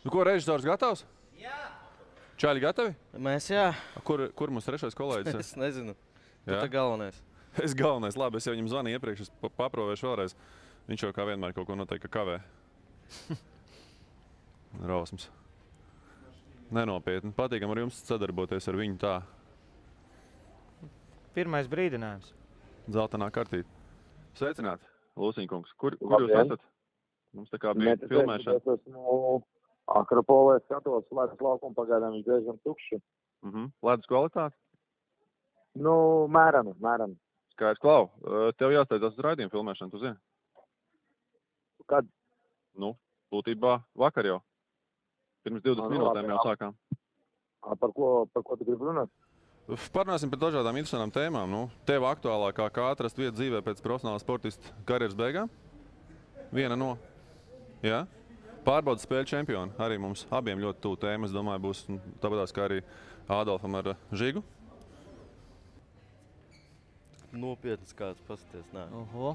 Nu, ko, režisors gatavs? Jā. Čaļi gatavi? Mēs jā. Kur mums trešais kolēģis? Es nezinu. Tu Jā? tā galvenais. Es galvenais. Labi, es jau viņam zvanīju iepriekš, es paprovēšu vēlreiz. Viņš jau kā vienmēr kaut ko noteikti kavē. Rausmas. Nenopietni. Patīkam ar jums sadarboties ar viņu tā. Pirmais brīdinājums. Zeltainā kartīte. Sveicināti, Lūsiņkungs. Kur jūs esat? Mums tā kā bija filmēšana. Es esmu Akropolē skatos, ledus laukumu pagaidām viņš diezgan tukši. Ledus kvalitāte? Nu, mērami. Skaidrs, Klau. Tev jāsteidzās uz raidījumu filmēšanu, tu zini? Kad? Nu, būtībā vakar jau. Pirms 20 minūtēm jau sākām. Par ko tu gribi runāt? Parunāsim par dažādām interesantām tēmām. Nu, tev aktuālākā, kā atrast vietu dzīvē pēc profesionāla sportista karjeras beigām? Viena no. Jā? Pārbaudas spēļu čempioni. Arī mums abiem ļoti tuvu tēma. Es domāju, būs tāpatās kā arī Ādolfam ar Žigu. Nopietnas kāds pasties, nē. Oho.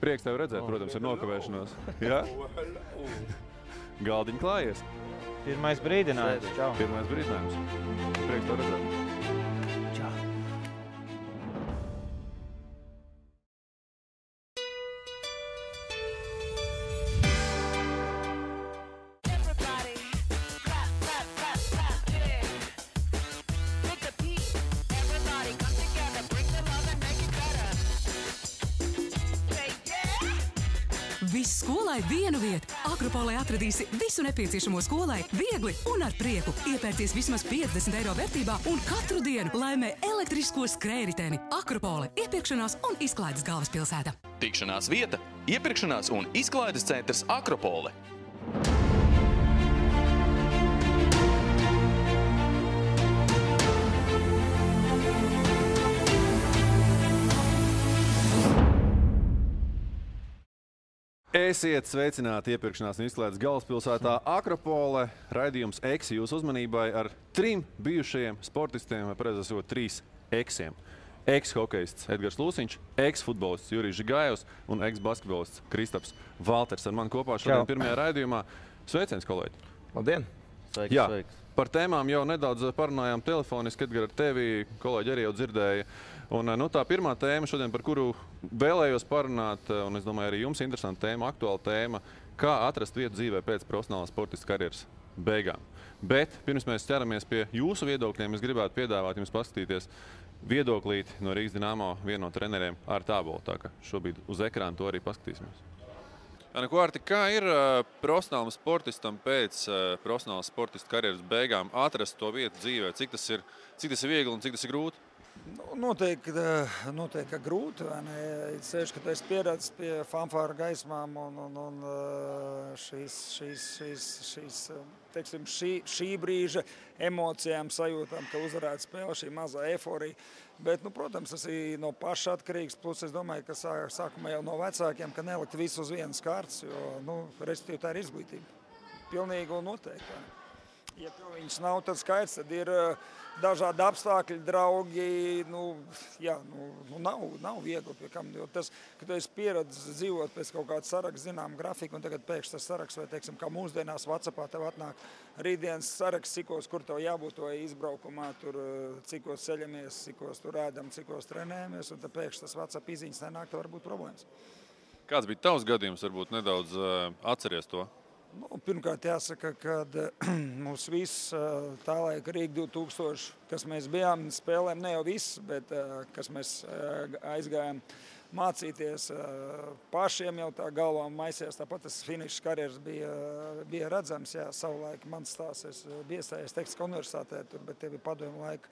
Prieks tevi redzēt, protams, ir nokavēšanos. Jā? Galdiņi klājies. Pirmais brīdinājums. Čau. Pirmais brīdinājums. Prieks tevi redzēt. Čau. Viss skolai vienu vietu. Akropolē atradīsi visu nepieciešamo skolai viegli un ar prieku. Iepērcies vismaz 50 eiro vērtībā un katru dienu laimē elektrisko skrējriteni. Akropole – iepirkšanās un izklaides galvaspilsēta. Tikšanās vieta, iepirkšanās un izklaides centrs Akropole. Esiet sveicināti iepirkšanās un izklaides galvaspilsētā Akropole. Raidījums Eksi jūsu uzmanībai ar 3 bijušajiem sportistiem, vai precīzāk sakot, 3 eksiem. Eks-hokejists Edgars Lūsiņš, eks-futbolists Jurijs Žigājevs un eks-basketbolists Kristaps Valters ar mani kopā šodien pirmajā raidījumā. Sveiciens, kolēģi! Labdien! Sveiks, Jā. sveiks. Par tēmām jau nedaudz parunājām telefoniski, Edgar, ar tevi, kolēģi arī jau dzirdēja. Un, tā pirmā tēma šodien, par kuru vēlējos parunāt, un es domāju, arī jums interesanta tēma, aktuāla tēma, kā atrast vietu dzīvē pēc profesionālās sportista karjeras beigām. Bet pirms mēs ķeramies pie jūsu viedokļiem, es gribētu piedāvāt jums paskatīties viedoklīti no Rīgas Dinamo, viena no treneriem ar tābolu. Tā ka šobrīd uz ekrāna to arī paskatīsimies. Ko, Arti, kā ir profesionālam sportistam pēc profesionālas sportista karjeras beigām atrast to vietu dzīvē? Cik tas ir viegli un cik tas ir grūti? Noteikti, ka grūti. Ceļš, ka tu esi pieredzis pie fanfāra gaismām un šī brīža emocijām, sajūtām, ka uzvarētu spēle, šī mazā eforija. Bet, protams, tas ir no paša atkarīgs. Plus, es domāju, ka sākumā jau no vecākiem, ka nelikt visu uz vienas kārtas, jo, respektīvi, tā ir izglītība. Pilnīgi un noteikti. Ja tev viņas nav, tad skaidrs, tad ir dažādi apstākļi, draugi, nav viegli pie kam, jo tas, ka tu esi pieredzis dzīvot pēc kaut kāda saraksta, zinām, grafika, un tagad pēkšņi tas saraksts, vai, teiksim, kā mūsdienās WhatsAppā tev atnāk rītdienas saraksts, cikos, kur tev jābūt to izbraukumā, tur, cikos ceļamies, cikos tur ēdam, cikos trenējamies, un tad pēkšņi tas WhatsApp izziņas nenāk, tev var būt problēmas. Kāds bija tavs gadījums, varbūt nedaudz atceries to? Pirmkārt, jāsaka, ka mums viss tā laika Rīga 2000, kas mēs bijām, spēlēm ne jau viss, bet kas mēs aizgājām mācīties pašiem jau tā galvā maisījās. Tāpat tas finišs karjeras bija redzams. Jā, savulaik mans stāsts, es biju iestājies Tehniskā universitātē, bet tie bija padomju laika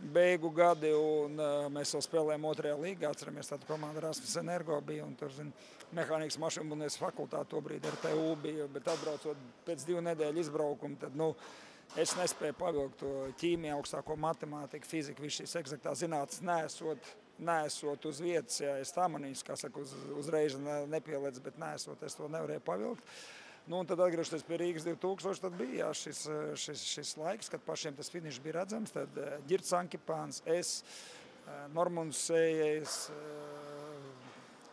beigu gadi, un mēs vēl spēlējām 2. līgā. Atceramies, tāda komanda Rasmus Energo bija, un tur, mehānikas mašīnbūvniecības fakultāte tobrīd RTU bija, bet atbraucot pēc 2 nedēļu izbraukumu, tad, es nespēju pavilkt to ķīmiju, augstāko matemātiku, fiziku, visu šīs eksaktās zinātnes neesot uz vietas. Jā, es tā manīšu, kā saka, uzreiz nepielēc, bet neesot, es to nevarēju pavilkt. Un tad atgriežoties pie Rīgas 2000, tad bija šis laiks, kad pašiem tas finišs bija redzams. Tad Ģirds Ankipāns, es, Normunds Sējais,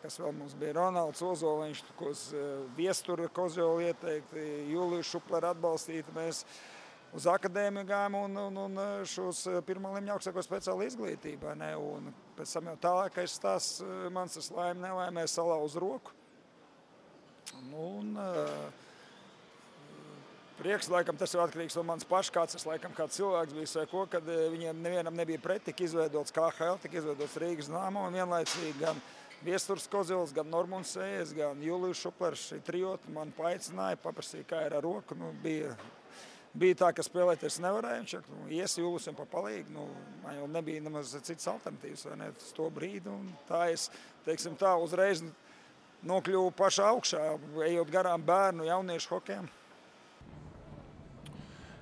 kas vēl mums bija Ronalds Ozoliņš, Viestura Kozjoli ieteikti, Juliju Šuplera atbalstīti. Mēs uz akadēmiju gājām un šos pirmā līmeņa augstāko speciālu izglītībā. Ne? Un pēc tam jau tālākais stāsts mans tas laime nelaimē salauza roku. Prieks, laikam, tas ir atkarīgs no manas pašas, kāds es laikam kā cilvēks bijis vai ko, kad viņiem nevienam nebija pret, tika izveidots KHL, tika izveidots Rīgas Dynamo un vienlaicīgi gan Viesturs Kozjols, gan Normunds Sējas, gan Julijs Šuplers, šī trijota man paaicināja, paprasīja, kā ir ar roku. Bija tā, ka spēlēties nevarēja, viņš ies Julijam pa palīgu, man jau nebija nemaz cits alternatīvas, vai ne, uz to brīdi, un tā es, teiksim tā, uzreiz nokļuvu pašā augšā, ejot garām bērnu, jauniešu hokejam.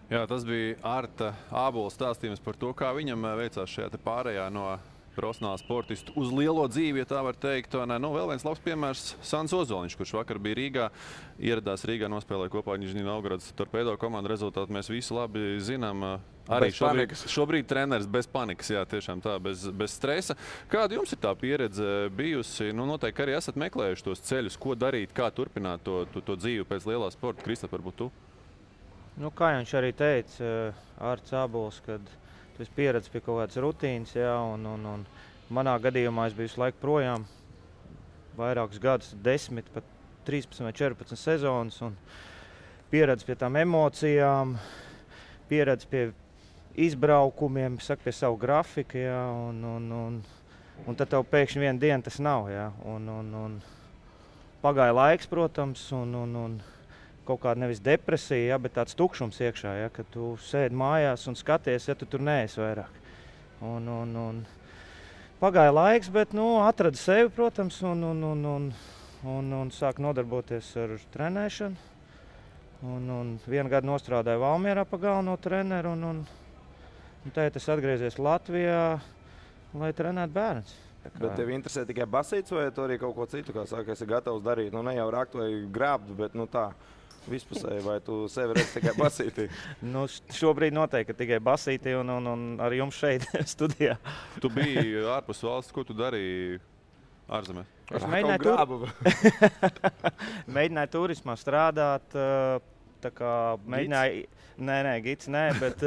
Jā, tas bija Arta Ābola stāstījums par to, kā viņam veicās šajā te pārējā no profesionāla sportistu uz lielo dzīvi, ja tā var teikt. Vēl viens labs piemērs Sans Ozoliņš, kurš vakar bija Rīgā, ieradās Rīgā, nospēlēja kopā Nižņī Novgorodas Torpedo komandu. Rezultātu mēs visi labi zinām. Arī šobrīd treneris bez panikas, jā, tiešām tā, bez stresa. Kāda jums ir tā pieredze bijusi? Noteikti arī esat meklējuši tos ceļus, ko darīt, kā turpināt to dzīvi pēc lielā sporta. Kristap, varbūt tu? Kā viņš arī teica, Arts Ābols, kad tu esi pieredzis pie kaut kādas rutīnas, jā, un manā gadījumā es biju visu laiku projām, vairākus gadus, 10, pat 13 vai 14 sezonas, un pieredzis pie tām emocijām, pieredzis pie izbraukumiem, pie savu grafiku, jā, un tad tev pēkšņi vienu dienu tas nav, jā, un pagāja laiks, protams, un kaut kāda nevis depresija, ja, bet tāds tukšums iekšā, ja, kad tu sēdi mājās un skaties, ja tu tur neesi vairāk. Un pagāja laiks, bet atrada sevi, protams, un sāk nodarboties ar trenēšanu. Un vienu gadu nostrādāju Valmierā pa galveno treneru, un tagad es atgriezies Latvijā, lai trenētu bērnus. Bet tev interesē tikai basīts vai tu arī kaut ko citu, kā saka, esi gatavs darīt? Ne jau rakt vai grābt, bet tā. Vispusēji, vai tu sevi redzi tikai basītī? Šobrīd noteikti tikai basītī un ar jums šeit studijā. Tu biji ārpus valsts, ko tu darīji ārzemēs? Es mēģināju turismā strādāt, tā kā mēģināju, gids nē, bet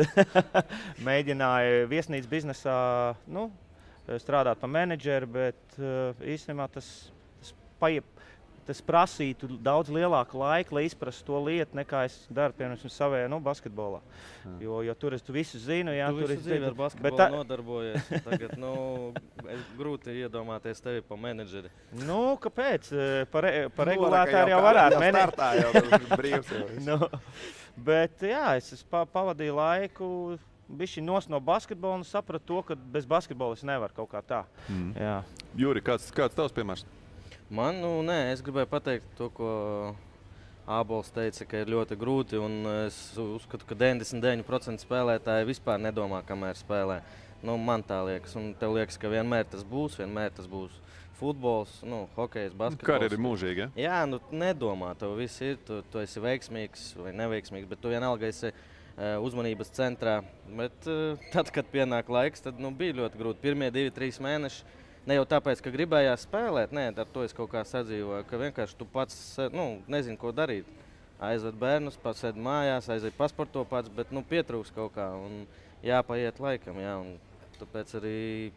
mēģināju viesnīcas biznesā, strādāt par menedžeru, bet īstenībā tas prasītu daudz lielāku laiku, lai izprastu to lietu, nekā es daru, piemēram, savējā basketbolā. Jo tur es visu zinu. Jā, tu visu dzīvi ar basketbolu nodarbojies. Tagad, grūti iedomāties tevi pa menedžeri. Kāpēc? Par regulātāru jau varētu. Startā jau tas brīvs. Bet jā, es pavadīju laiku bišķi no basketbola un sapratu to, ka bez basketbola es nevaru kaut kā tā. Jā. Juri, kāds tavs piemērs? Man, es gribēju pateikt to, ko Ābols teica, ka ir ļoti grūti, un es uzskatu, ka 99% spēlētāji vispār nedomā, kamēr spēlē. Man tā liekas, un tev liekas, ka vienmēr tas būs futbols, hokejs, basketbols. Karjera ir mūžīga, ja? Jā, nedomā, tev viss ir, tu esi veiksmīgs vai neveiksmīgs, bet tu vienalga esi uzmanības centrā. Bet tad, kad pienāk laiks, tad bija ļoti grūti. Pirmie 2-3 mēneši. Ne jau tāpēc, ka gribējās spēlēt, ar to es kaut kā sadzīvoju, ka vienkārši tu pats nezini, ko darīt. Aizved bērnus, pats sēd mājās, aizved pasporto pats, bet pietrūks kaut kā un jāpaiet laikam. Jā, un tāpēc arī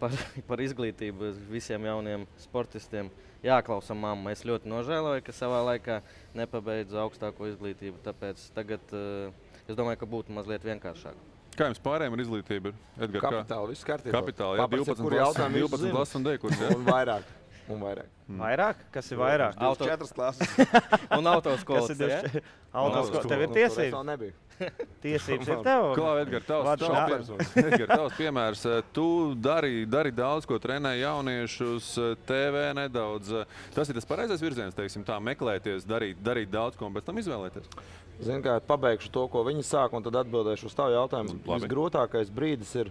par izglītību visiem jauniem sportistiem jāklausa mamma. Es ļoti nožēloju, ka savā laikā nepabeidzu augstāko izglītību, tāpēc tagad es domāju, ka būtu mazliet vienkāršāk. Kā jums pārējiem ar izglītību? Edgar, Kapitāli, viss kārtībā. Kapitāli, jā, 12 klases un D-kurs, jā? Un vairāk. Vairāk? Kas ir vairāk? 4 klases. Un autoskolas, ja? Autoskolas. Tev ir tiesības? Vēl nebija. Tiesības ir tev? Klā, Edgar, tavs piemērs. Tu dari daudz, ko trenē jauniešus, TV nedaudz. Tas ir tas pareizais virziens, teiksim tā, meklēties, darīt daudz, ko un pēc tam izvēlēties? Zinu, kā pabeigšu to, ko viņi sāk, un tad atbildēšu uz tavu jautājumu. Visgrūtākais brīdis ir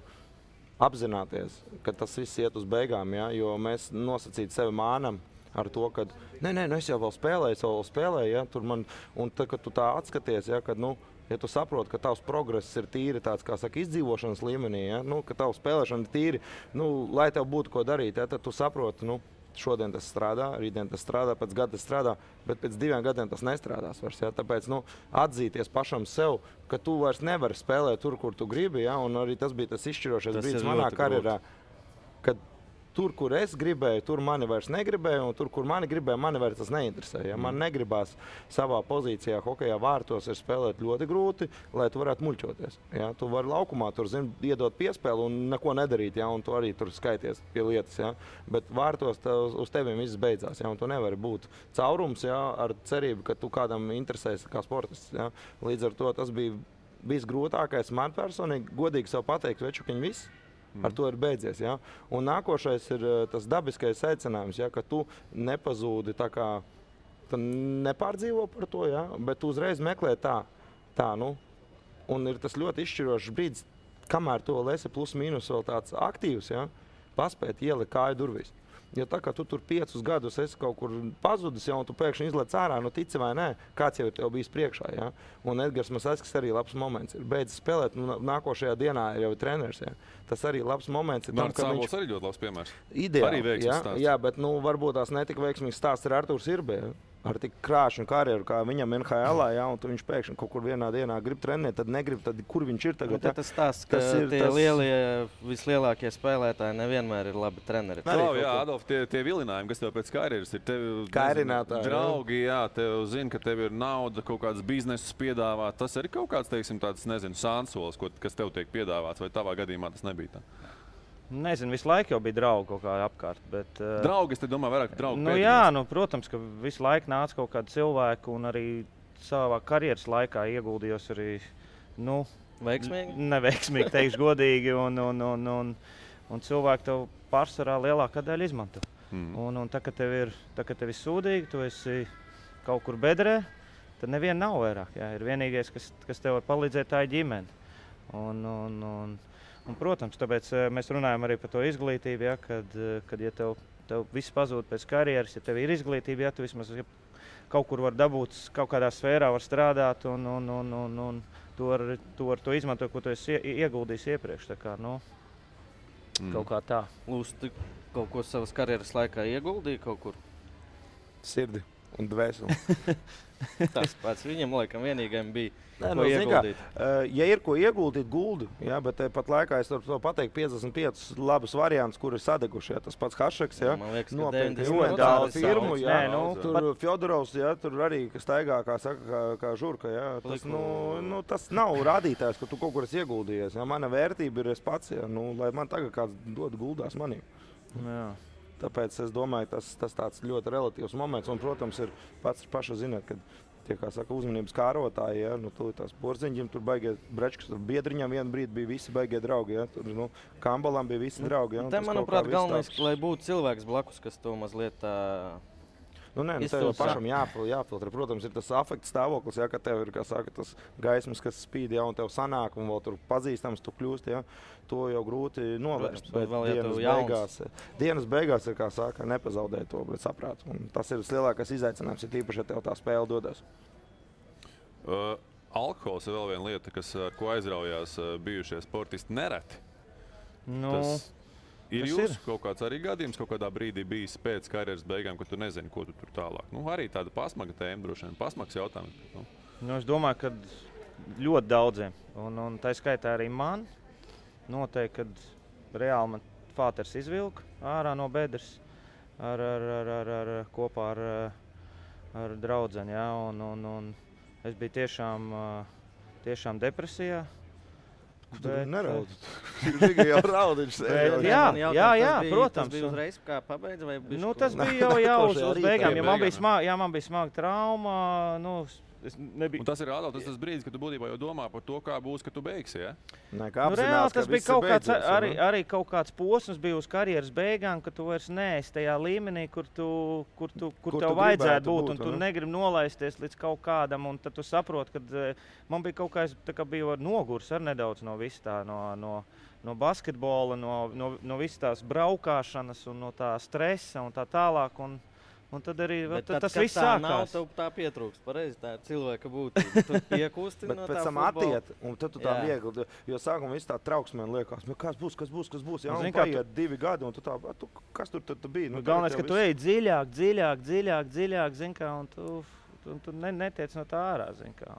apzināties, ka tas viss iet uz beigām, ja? Jo mēs nosacīt sevi mānam ar to, ka es jau vēl spēlēju, ja? Un tad, kad tu tā atskaties, ja? Kad, ja tu saproti, ka tavs progress ir tīri tāds, kā saka, izdzīvošanas līmenī, ja? Ka tavs spēlēšana ir tīri, lai tev būtu ko darīt, ja? Tad tu saproti, šodien tas strādā, rītdien tas strādā, pēc gada tas strādā, bet pēc 2 gadiem tas nestrādās vairs. Ja? Tāpēc atzīties pašam sev, ka tu vairs nevari spēlēt tur, kur tu gribi, ja? Un arī tas bija tas izšķirošais brīdis manā karjerā, kad tur, kur es gribēju, tur mani vairs negribēju, un tur, kur mani gribēja, mani vairs tas neinteresēja. Ja? Man negribās savā pozīcijā hokejā vārtos ir spēlēt ļoti grūti, lai tu varētu muļķoties. Ja? Tu vari laukumā tur, iedot piespēli un neko nedarīt, ja? Un tu arī tur skaities pie lietas. Ja? Bet vārtos uz teviem viss beidzās, ja? Un tu nevari būt caurums, ja? Ar cerību, ka tu kādam interesēs kā sportists. Ja? Līdz ar to tas bija visgrūtākais man personīgi, godīgi sev pateikt, večukiņ viss. Ar to ir beidzies. Ja? Un nākošais ir tas dabiskais secinājums, ja? Ka tu nepazūdi tā kā, tu nepārdzīvo par to, ja? Bet tu uzreiz meklē tā. Un ir tas ļoti izšķirošs brīdis, kamēr tu vēl esi plus mīnus vēl tāds aktīvs, ja? Paspēt ielikt kāju durvīs. Jo tā kā tu tur 5 gadus esi kaut kur pazudis, ja, un tu pēkšņi izlec ārā, tici vai nē, kāds jau ir tev bijis priekšā. Ja? Un Edgars Masaiskis arī labs moments ir. Beidzis spēlēt, nākošajā dienā jau ir treneris. Ja? Tas arī labs moments ir. Mārts Sābols arī ļoti labs piemērs. Ideāli, jā, bet varbūt tās netika veiksmīgs stāsts ar Artūru Sirbē. Ar tik krāšņu karjeru, kā viņam NHL-ā, ja, un viņš pēkšņi kaut kur vienā dienā grib trenēt, tad negrib, tad kur viņš ir tagad? Tas stāsts, ka vislielākie spēlētāji nevienmēr ir labi treneri. Jā, Adolf, tie vilinājumi, kas tev pēc karjeras ir, draugi, jā, tev zina, ka tev ir nauda, kaut kāds biznesus piedāvāt, tas arī kaut kāds, teiksim, tāds, sānsols, kas tev tiek piedāvāts, vai tavā gadījumā tas nebija tā? Nezinu, visu laiku jau bija draugi kaut kā apkārt. Bet, draugi, es te domāju, vairāk draugi pēdējos. Jā, protams, ka visu laiku nāca kaut kādi cilvēki, un arī savā karjeras laikā ieguldījos arī, veiksmīgi? Neveiksmīgi, teikšu godīgi, un cilvēki tev pārsvarā lielākā daļa izmanto. Un tā, ka tev ir sūdīgi, tu esi kaut kur bedrē, tad neviena nav vairāk. Jā. Ir vienīgais, kas tev var palīdzēt, tā ir ģimene. Un, protams, tāpēc mēs runājam arī par to izglītību, ja, kad ja tev viss pazūd pēc karjeras, ja tev ir izglītība, ja tu vismaz kaut kur var dabūt, kaut kādā sfērā var strādāt un tu ar to izmanto, ko tu esi ieguldījis iepriekš. Tā kā, kaut kā tā. Lūs, tu kaut ko savas karjeras laikā ieguldīji kaut kur? Sirdi un dvēseli. Tas pats viņam laikam vienīgajam bija. Ko ieguldīt? Ja ir ko ieguldīt, guldi, ja, bet pat laikā es varu pateikt 55 labus variantus, kuri ir sadeguši. Ja, tas pats Hašeks, ja, nopietni uendāla firmu, ja, tur Fjodorovs, ja, tur arī staigā, kā saka, kā žurka, ja, tas nav rādītājs, ka tu kaut kur esi ieguldījies. Ja, mana vērtība ir es pats, ja, lai man tagad kāds dod guldās manī. Jā. Tāpēc es domāju, tas tāds ļoti relatīvs moments, un, protams, ir paša zināt, kad tie, kā saka, uzmanības kārotāji, ja, tu tās Porziņģim, tur baigie Brečkas, tur Biedriņam vienu brīdi bija visi baigie draugi, ja, tur, Kambalam bija visi draugi. Ja, te, manuprāt, galvenais, lai būtu cilvēks blakus, kas to mazliet tā... tev pašam jāfiltrē. Protams, ir tas afekta stāvoklis, ja, ka tev ir, kā saka, tas gaismas, kas spīd, ja, un tev sanāk, un vēl tur pazīstams tu kļūst, ja, to jau grūti novērst. Protams, bet dienas beigās ir, kā saka, nepazaudēt to, bet saprāt. Un tas ir lielākais izaicinājums, ir tīpaši, ja tev tā spēle dodas. Alkohols ir vēl viena lieta, ar ko aizraujās bijušie sportisti nereti. Ir jūsu kaut kāds arī gadījums, kaut kādā brīdī bijis pēc karjeras beigām, ka tu nezini, ko tu tur tālāk? Arī tāda pasmaga tēma, droši vien, pasmags jautājums. Es domāju, ka ļoti daudziem, un tā skaitā arī man, noteikti, kad reāli man fāters izvilka ārā no bedres kopā ar draudzeni, ja, un es biju tiešām depresijā. Tu neraudi. Viņš jau raudiņš. Jā, protams. Tas bija uzreiz, kā pabeidza, vai bišķi? Tas bija jau uz beigām, ja man bija smaga trauma, nebija... Un tas ir Adolf, tas brīdis, kad tu būtībā jau domā par to, kā būs, kad tu beigsi, ja? Reāli tas bija kaut kāds, arī kaut kāds posms bija uz karjeras beigām, ka tu vairs neesi tajā līmenī, kur tev vajadzētu būt, un tu negribi nolaisties līdz kaut kādam, un tad tu saproti, ka man bija kaut kā bija nogurs ar nedaudz no visu tā, no basketbola, no visas tās braukāšanas un no tā stresa un tā tālāk, un Un tad arī Bet tas kad viss tā nav, sākās. tev tā pietrūkst. Pareizi, tā ir cilvēka būtība. Tu piekūsti Bet no pēc tā tam futbola. attiet, un tad tu tā Jā. viegli, jo sākumā viss tā trauksmēn liekas, kas būs, jā, Nu, un zini, kā paiet 2 gadi, un tu tā, kas tur bija? Nu, galvenais, ka tu ej dziļāk, zin kā, un tu netiec no tā ārā, zin kā.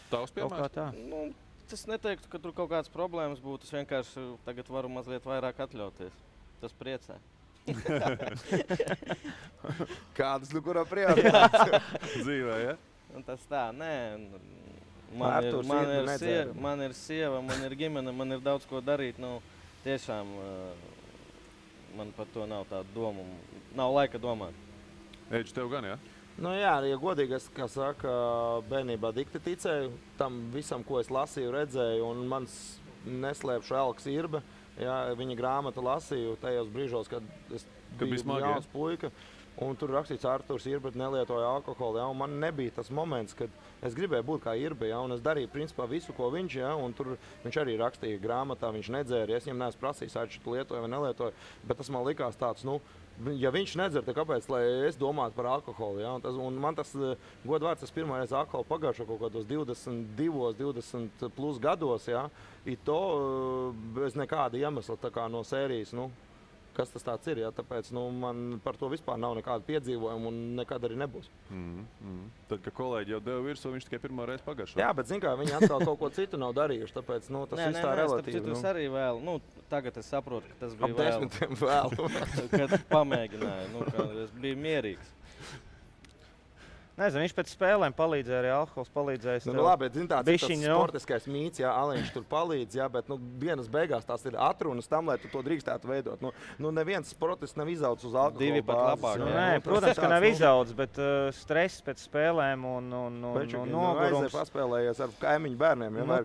Tavs Kaut kā piemērs? tā. Nu, es neteiktu, ka tur kaut kādas problēmas būtu. Es vienkārši tagad varu mazliet vairāk atļauties. Tas priecē. Kādas, kurā prioritātes? Dzīvē, ja? Un tas tā, nē. Arturs ir nedzēra. Man ir sieva, man ir ģimene, man ir daudz ko darīt. Nu, tiešām man par to nav tāda doma. Nav laika domāt. Eģis, tev gan, ja? Nu jā, ja godīgi, es, kā saka, bērnībā dikti ticēju tam visam, ko es lasīju, redzēju, un mans neslēpšu Elks Irbe, jā, viņa grāmatu lasīju tajos brīžos, kad es biju jauns puika, un tur rakstīts Arturs Irbe nelietoja alkoholu, jā, un man nebija tas moments, kad es gribēju būt kā Irbe, jā, un es darīju principā visu, ko viņš, jā, un tur viņš arī rakstīja grāmatā, viņš nedzēra, es viņam neesmu prasījis, vai tu lietoja vai nelietoja, bet tas man likās tāds, nu, ja viņš nedzer, tad kāpēc, lai es domātu par alkoholu, ja? Un man tas, godvārds, tas pirmais alkoholu pagājušo kaut kādos 22, 20 plus gados, ja? I to bez nekāda iemesla tā kā no sērijas, nu, kas tas tāds ir, ja? Tāpēc, nu, man par to vispār nav nekāda piedzīvojuma un nekad arī nebūs. Tad, kad kolēģi jau deva virsū, viņš tikai pirmo reizi pagājušo. Jā, bet, zin kā, viņi atkal kaut ko citu nav darījuši, tāpēc, nu, tas viss tā relatīvi. Tas arī vēl, nu, tagad es saprotu, ka tas bija vēl. Ap 10 vēl. Kad pamēģināju, nu, ka es biju mierīgs. Nezinu, viņš pēc spēlēm palīdzēja, arī alkohols palīdzēja. Nu, labi, bet zin, tāds sportiskais mīts, jā, Aliņš tur palīdz, jā, bet, nu, dienas beigās tās ir atrunas tam, lai tu to drīkstētu veidot. Nu neviens sportists nav izaudzis uz alkohola Divi pat labāk. Nē, protams, ka nav izaudzis, bet stress pēc spēlēm un nogurums. Aizēja paspēlējies ar kaimiņu bērniem, ja,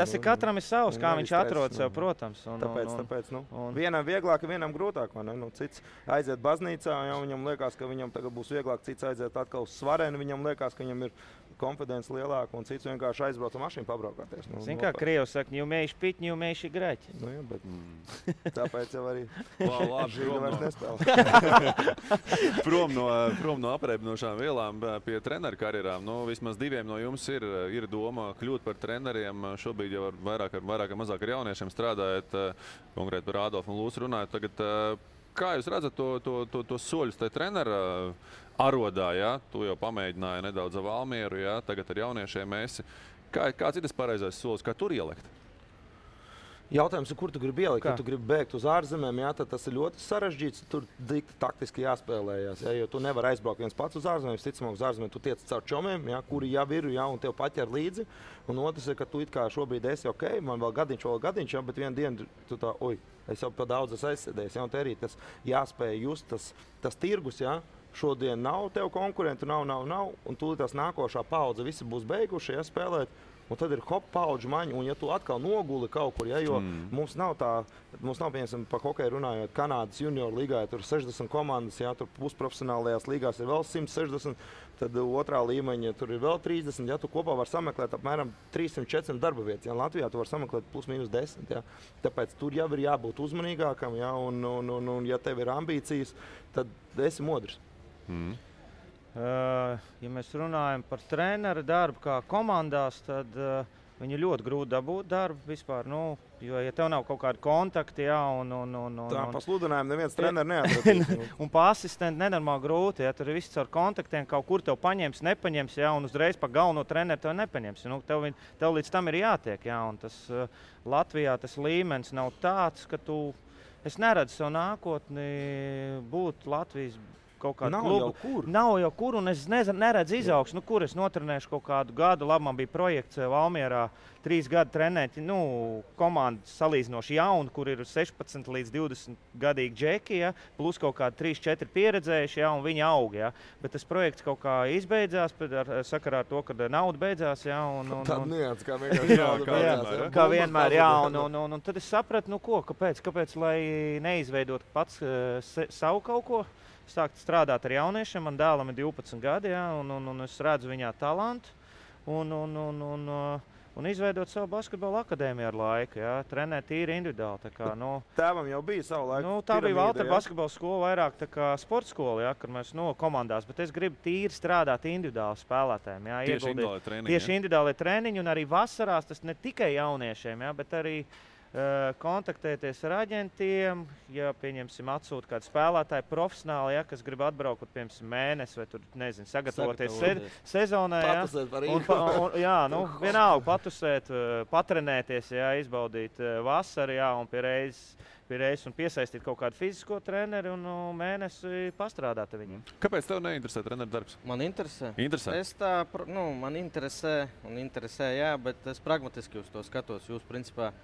tas ir katram ir savs, kā viņš atrod sev, protams. Tāpēc, nu, vienam vieglāk, vienam grūtāk, vai ne? Nu, cits aiziet baznīcā, ja viņam liekas, ka viņam tagad būs vieglāk, cits aiziet atkal uz svarēnu. Viņam liekas, ka viņam ir konfidence lielāka, un cits vienkārši aizbrauc ar mašīnu pabraukāties. Nu, zin kā Krievs saka, не умеешь пить, не умеешь играть. Nu, jā, bet tāpēc jau arī Labi, vairs nespēlē. Prom no apreibinošām vielām pie treneru karjerām. Nu, vismaz diviem no jums ir doma kļūt par treneriem. Šobrīd jau vairāk ar mazāk ar jauniešiem strādājat, konkrēti par Ādolfu un Lūsu runājot. Tagad, kā jūs redzat to soļus te trenera arodā, ja? Tu jau pamēģināji nedaudz ar Valmieru, ja? Tagad ar jauniešiem esi. Kāds ir tas pareizais solis, kā tur ielikt? Jautājums ir, kur tu gribi ielikt? Ja tu gribi bēgt uz ārzemēm, jā, tad tas ir ļoti sarežģīts. Tur taktiski jāspēlējas, jā, jo tu nevari aizbraukt viens pats uz ārzemēm. Ticamāk, uz ārzemēm tu tiec caur čomiem, jā, kuri jau ir, jā, un tev paķer līdzi. Un otrs ir, ka tu it kā šobrīd esi ok, man vēl gadiņš, jā, bet vienu dienu tu tā, es jau pa daudz esmu aizsēdējis, jā, un te arī tas jāspēj just, tas tirgus, jā. Šodien nav tev konkurentu, nav, un tūlīt tās nākošā paudze visi būs beiguši, ja, spēlēt, un tad ir hop paudžu maņa, un ja tu atkal noguli kaut kur, ja, jo mums nav, piemēram, par hokeju runājot, Kanādas junior līgā, tur 60 komandas, ja, tur pusprofesionālajās līgās ir vēl 160, tad otrā līmeņa tur ir vēl 30, ja, tu kopā var sameklēt apmēram 300-400 darba vietas, ja, Latvijā tu var sameklēt plus mīnus 10, ja, tāpēc tur jau ir jābūt uzmanīgākam, ja, un ja tev ir ambīcijas, tad esi modrs. Ja mēs runājam par treneru darbu kā komandās, tad viņi ļoti grūti dabūt darbu vispār. Nu, jo, ja tev nav kaut kāda kontakta, jā, tā pa sludinājumu neviens treneru neatradīs. Un pa asistentu nenormāli grūti, ja tur ir viss ar kontaktiem, kaut kur tev paņems, nepaņems, jā, un uzreiz pa galveno treneru tev nepaņems. Nu, tev līdz tam ir jātiek, jā, un tas Latvijā tas līmenis nav tāds, ka es neredzu savu nākotni būt Latvijas kaut kādu klubu. Nav jau kur, un es neredzu izaugsmu. Nu, kur es notrenēšu kaut kādu gadu. Labi, man bija projekts Valmierā 3 gadu trenēt, komandu salīdzinoši jaunu, kur ir 16 līdz 20 gadīgi džeki, ja, plus kaut kādi 3-4 pieredzējuši, ja, un viņi aug. Ja. Bet tas projekts kaut kā izbeidzās, sakarā ar to, ka nauda beidzās. Ja, tāda nians, kā vienkārši nauda beidzās. Ja. Kā vienmēr, jā. Un tad es sapratu, kāpēc lai neizveidot pats savu kaut ko. Sākt strādāt ar jauniešiem, man dēlam ir 12 gadi, ja, un es redzu viņā talantu. Un un izveidot savu basketbola akadēmiju ar laiku, jā, trenēt tīri individuāli. Tā kā, Tēvam jau bija savu laiku. Tā bija Valtera basketbola skola, vairāk tā kā sporta skola, jā, kad mēs komandās, bet es gribu tīri strādāt individuāli spēlētājiem, jā, tieši individuāli treniņi, un arī vasarās tas ne tikai jauniešiem, jā, bet arī kontaktēties ar aģentiem, ja, pieņemsim, atsūt kādu spēlētāju profesionāli, ja, kas grib atbraukt, piemēram, mēnesi vai tur, nezinu, sagatavoties sezonai. Ja, vienalga patusēt, patrenēties, ja, izbaudīt vasaru, ja, un pie reizes un piesaistīt kaut kādu fizisko treneri un mēnesi pastrādāt ar viņiem. Kāpēc tev neinteresē treneru darbs? Man interesē. Interesē? Man interesē, jā, bet es pragmatiski uz to skatos. Jūs, principā,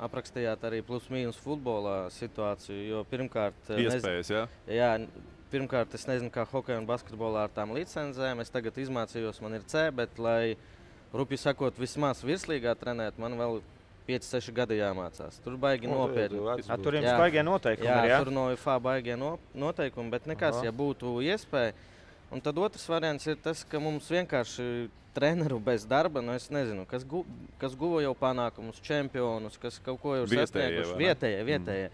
aprakstījāt arī plus-mīnus futbolā situāciju, jo pirmkārt... Iespējas, jā? Jā, pirmkārt, es nezinu, kā hokeja un basketbolā ar tām licencēm. Es tagad izmācījos, man ir C, bet, lai, rupi sakot, vismaz virslīgā trenēt, man vēl 5-6 gadi jāmācās. Tur baigi nopietni. Tur jums baigie noteikumi ir, jā? Tur no UFA baigie noteikumi, bet nekas, ja būtu iespēja. Un tad otrs variants ir tas, ka mums vienkārši treneru bez darba, es nezinu, kas guva jau panākumus, čempionus, kas kaut ko jau sasnieguši. Vietējie.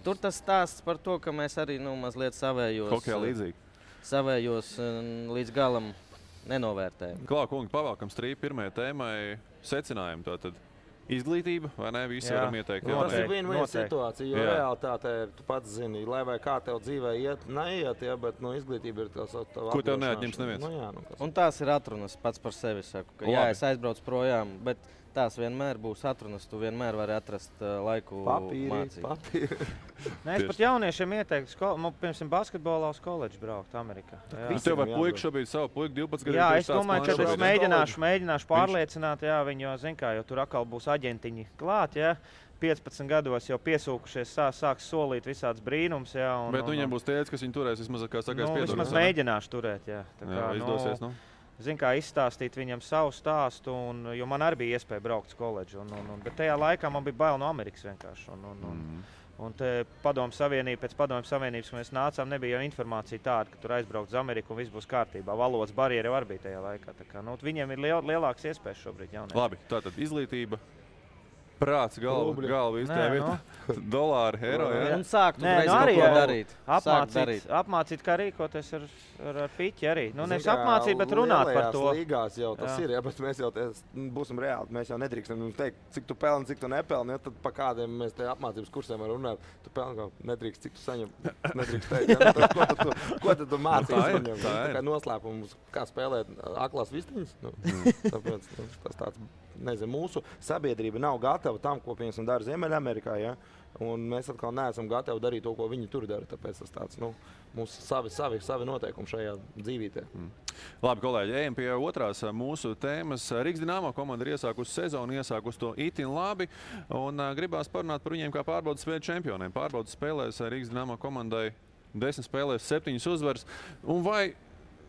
Tur tas stāsts par to, ka mēs arī mazliet savējos līdz galam nenovērtējam. Klā, kungi, pavalkam strīpu pirmajai tēmai secinājumu tātad. Izglītība, vai ne? Visi varam ieteikt. Tas ir viena situācija, jo realitātē, tu pats zini, lai vai kā tev dzīvē iet, neiet, ja, bet izglītība ir tās tava ko tev neatņems neviens. Un tās ir atrunas pats par sevi, saku, ka jā, es aizbraucu projām, bet tās vienmēr būs atrunas, tu vienmēr vari atrast laiku mācīt. Papīri. Es pat jauniešiem ieteiktu, piemēram, basketbolā uz koledžu braukt Amerikā. Tev vai puika šobrīd savu puiku 12 gadu? Jā, es domāju, ka es mēģināšu pārliecināt, jā, viņu, zin kā, jo tur atkal būs aģentiņi klāt, jā. 15 gados jau piesūkušies, sāks solīt visāds brīnums, jā. Bet viņiem būs tēdz, kas viņi turēs, vismaz, kā sakās, piedod. Vismaz mēģināšu turēt, jā. Tā kā, izdosies, Zin kā izstāstīt viņam savu stāstu, jo man arī bija iespēja braukt uz koledžu, bet tajā laikā man bija bail no Amerikas vienkārši. Un te pēc Padomju Savienības, kad mēs nācām, nebija jau informācija tāda, ka tur aizbraukt uz Ameriku un viss būs kārtībā. Valodas barjeri jau arī bija tajā laikā. Tā kā, viņiem ir lielāks iespējas šobrīd jauniešiem. Labi, tātad izglītība. Prāts, galva viss tajā vietā. Dolāri, eiro, jā. Un sākt uzreiz kaut ko darīt. Apmācīt, kā rīkoties ar piķi arī. Nevis apmācīt, bet runāt par to. Līgās jau tas ir, ja, bet mēs jau būsim reāli. Mēs jau nedrīkstam teikt, cik tu pelni, cik tu nepelni. Ja, tad pa kādiem mēs te apmācības kursiem varam runāt. Tu pelni kaut nedrīkst, cik tu saņem. Nedrīkst teikt. Ja, ko tad tu mācīs viņam? Tā kā noslēpums, kā spēlēt aklās vistiņas. Tāpēc tas tāds... Nezinu, mūsu sabiedrība nav gatava tam, ko piemēram dara Ziemeļamerikā, ja? Un mēs atkal neesam gatavi darīt to, ko viņi tur dara. Tāpēc tas tāds, mūsu savi noteikumi šajā dzīvītē. Labi, kolēģi, ejam pie otrās mūsu tēmas. Rīgas Dinamo komanda ir iesākusi sezonu, iesākusi to itin labi, un gribās parunāt par viņiem kā pārbaudas spēļu čempioniem. Pārbaudas spēlēs Rīgas Dinamo komandai 10 spēlēs 7 uzvaras. Un vai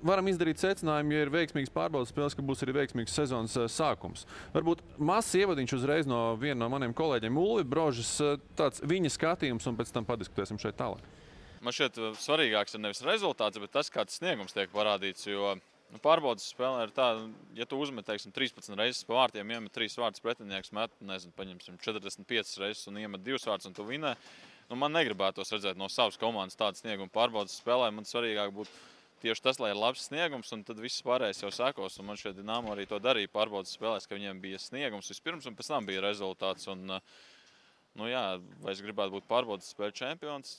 varam izdarīt secinājumu, ja ir veiksmīgs pārbaudas spēles, ka būs arī veiksmīgs sezonas sākums. Varbūt mazs ievadiņš uzreiz no viena no maniem kolēģiem Ulvi Brožas, tāds viņa skatījums, un pēc tam padiskutēsim šeit tālāk. Man šķiet svarīgāks ir nevis rezultāts, bet tas, kāds sniegums tiek parādīts, jo pārbaudas spēlē ir tā, ja tu uzmet, 13 reizes pa vārtiem, iemet 3 vārtus pretinieks, met, paņemsim 45 reizes un iemet 2 vārtus un tu vinē. Man negribētos redzēt no savas komandas tādu sniegumu pārbaudas spēlē, man svarīgāk būtu tieši tas, lai ir labs sniegums, un tad viss pārējais jau sekos. Un man šeit Dinamo arī to darīja pārbaudas spēlēs, ka viņiem bija sniegums vispirms, un pēc tam bija rezultāts. Un, vai es gribētu būt pārbaudas spēļu čempions?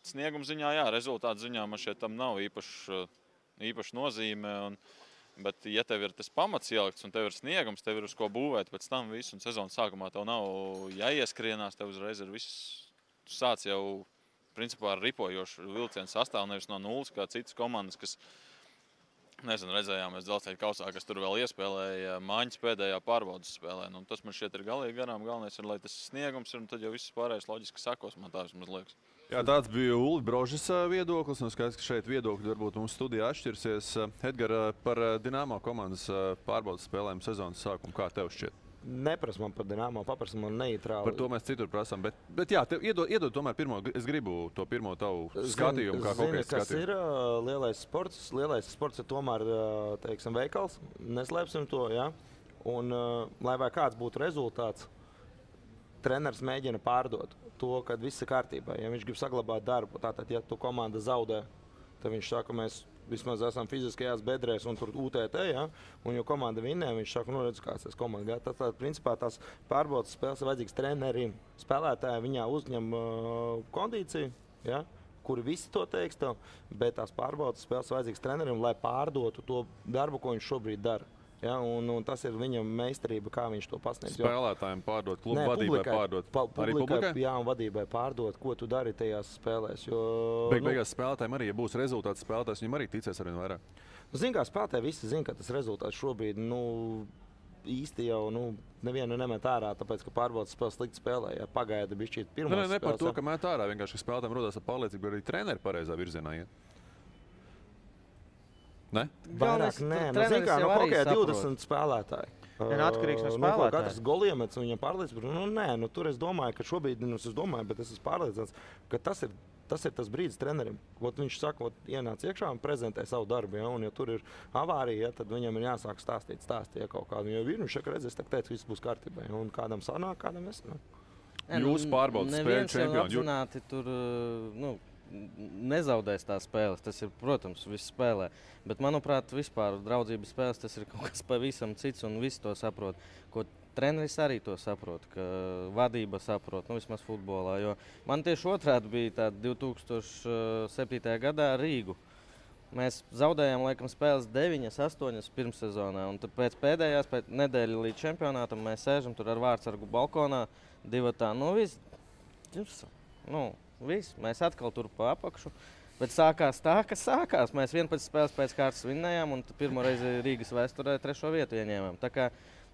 Snieguma ziņā, jā, rezultātu ziņā man šeit tam nav īpaši nozīme. Bet, ja tev ir tas pamats ielikts un tev ir sniegums, tev ir uz ko būvēt pēc tam visu, un sezonas sākumā tev nav jāieskrienās, tev uzreiz ir viss, tu sāc jau principā ar ripojošu vilcienu sastāvu, nevis no nulles, kā citas komandas, kas, redzējām mēs Dzelzceļa kausā, kas tur vēl iespēlēja Māņas pēdējā pārbaudas spēlē. Tas man šķiet ir galīgi garām. Galvenais ir, lai tas sniegums ir, un tad jau viss pārējais loģiski sakos, man tā vismaz liekas. Jā, tāds bija Ulvi Brožas viedoklis, un skaidrs, ka šeit viedokļi varbūt mums studijā atšķirsies. Edgar, par Dinamo komandas pārbaudas spēlēm sezonas sākumu, kā tev šķiet? Neprasa man par Dinamo, paprasa man neitrāli. Par to mēs citur prasām, bet jā, iedod tomēr pirmo, es gribu to pirmo tavu skatījumu, kā hokejas skatījumu. Kas ir lielais sports? Lielais sports ir tomēr, veikals, neslēpsim to, jā. Un, lai vai kāds būtu rezultāts, treneris mēģina pārdot to, ka viss ir kārtībā. Ja viņš grib saglabāt darbu, tātad, ja tu komanda zaudē, tad viņš saka, mēs vismaz esam fiziskajās bedrēs un tur UTT, ja? Un jo komanda vinnē, viņš saka, nu redz, kāds tas komanda. Ja? Tad, principā, tās pārbaudas spēles ir vajadzīgs trenerim. Spēlētāji viņā uzņem kondīciju, ja? Kuri visi to teiks tev, bet tās pārbaudas spēles ir vajadzīgs trenerim, lai pārdotu to darbu, ko viņš šobrīd dara. Ja, un tas ir viņam meistarība, kā viņš to pasniedz. Spēlētājiem pārdot, klubu vadībai pārdot. Arī publikai? Jā, un vadībai pārdot, ko tu dari tajās spēlēs. Jo, beigās spēlētājiem arī, ja būs rezultāts spēlētājs, viņam arī ticēs arvien vairāk. Zin kā spēlētāji visi zin, ka tas rezultāts šobrīd īsti jau nevienu nemet ārā, tāpēc, ka pārbaudas spēles slikti spēlē. Ja pagaida bišķīt pirmās spēles. Ne par to, ka met ārā, vienkārši spēlētājiem rodās ar pārliecību, arī treneri pareizā virzienā iet. Ne? Vairāk nē. Zin kā, hokejā 20 spēlētāji. Atkarīgs no spēlētāja. Katrs goliemets viņam pārliecība. Tur es domāju, ka šobrīd, bet es esmu pārliecināts, ka tas ir tas brīdis trenerim. Viņš saka, ienāc iekšā un prezentē savu darbu. Ja? Un, ja tur ir avārija, ja, tad viņam ir jāsāk stāstīt ja, kaut kādu. Jo viņš saka, redz, es teicu, viss būs kārtībā. Ja? Un kādam sanāk, kādam nesanāk. Jūs pārbaudat spēļu čempionu. Neviens jau apzināti nezaudēs tās spēles. Tas ir, protams, viss spēlē. Bet, manuprāt, vispār draudzības spēles tas ir kaut kas pavisam cits un visi to saprot. Ko treneris arī to saprot, ka vadība saprot, vismaz futbolā. Jo man tieši otrādi bija tāda 2007. gadā Rīgu. Mēs zaudējām, laikam, spēles 9, 8 pirmssezonā. Un tad pēc pēdējās nedēļas līdz čempionātam mēs sēžam tur ar vārdsargu balkonā, divatā. Viss, mēs atkal tur pa apakšu. Bet sākās tā, kas sākās. Mēs 11 spēles pēc kārtas vinnējām un pirmo reizi Rīgas vēsturē 3. vietu ieņēmām. Tā kā,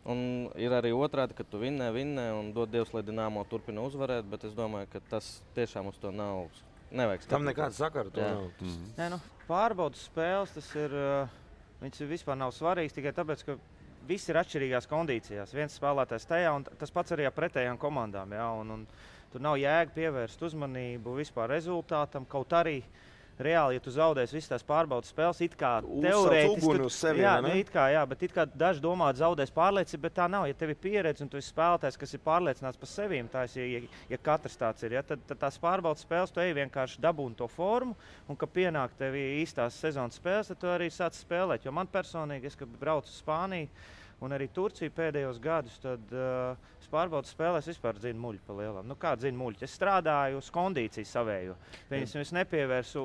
un ir arī otrādi, ka tu vinnē un dod Dievs, lai Dinamo turpina uzvarēt, bet es domāju, ka tas tiešām uz to nevajag skatīt. Tam nekāda sakara to nav. Nē, pārbaudas spēles, viņas vispār nav svarīgas tikai tāpēc, ka visi ir atšķirīgās kondīcijās. Viens spēlētājs tajā un tas pats arī ar pretējām komandām. Ja? Un tur nav jēga pievērst uzmanību vispār rezultātam, kaut arī reāli, ja tu zaudēsi visas tās pārbaudas spēles, it kā teorētiski, bet it kā daži domā, zaudēs pārliecību, bet tā nav. Ja tev ir pieredze un tu esi spēlētājs, kas ir pārliecināts par sevīm, tā ja katrs tāds ir, ja, tad tās pārbaudas spēles tu ej vienkārši dabūni to formu, un ka pienāk tev īstās sezonas spēles, tad tu arī sāc spēlēt. Jo man personīgi, kad braucu uz Spāniju un arī Turciju pēdējos gadus, tad pārbaudas spēlēs vispār dzinu muļu pa lielam. Kā dzinu muļu? Es strādāju uz kondīciju savēju. Es nepievērsu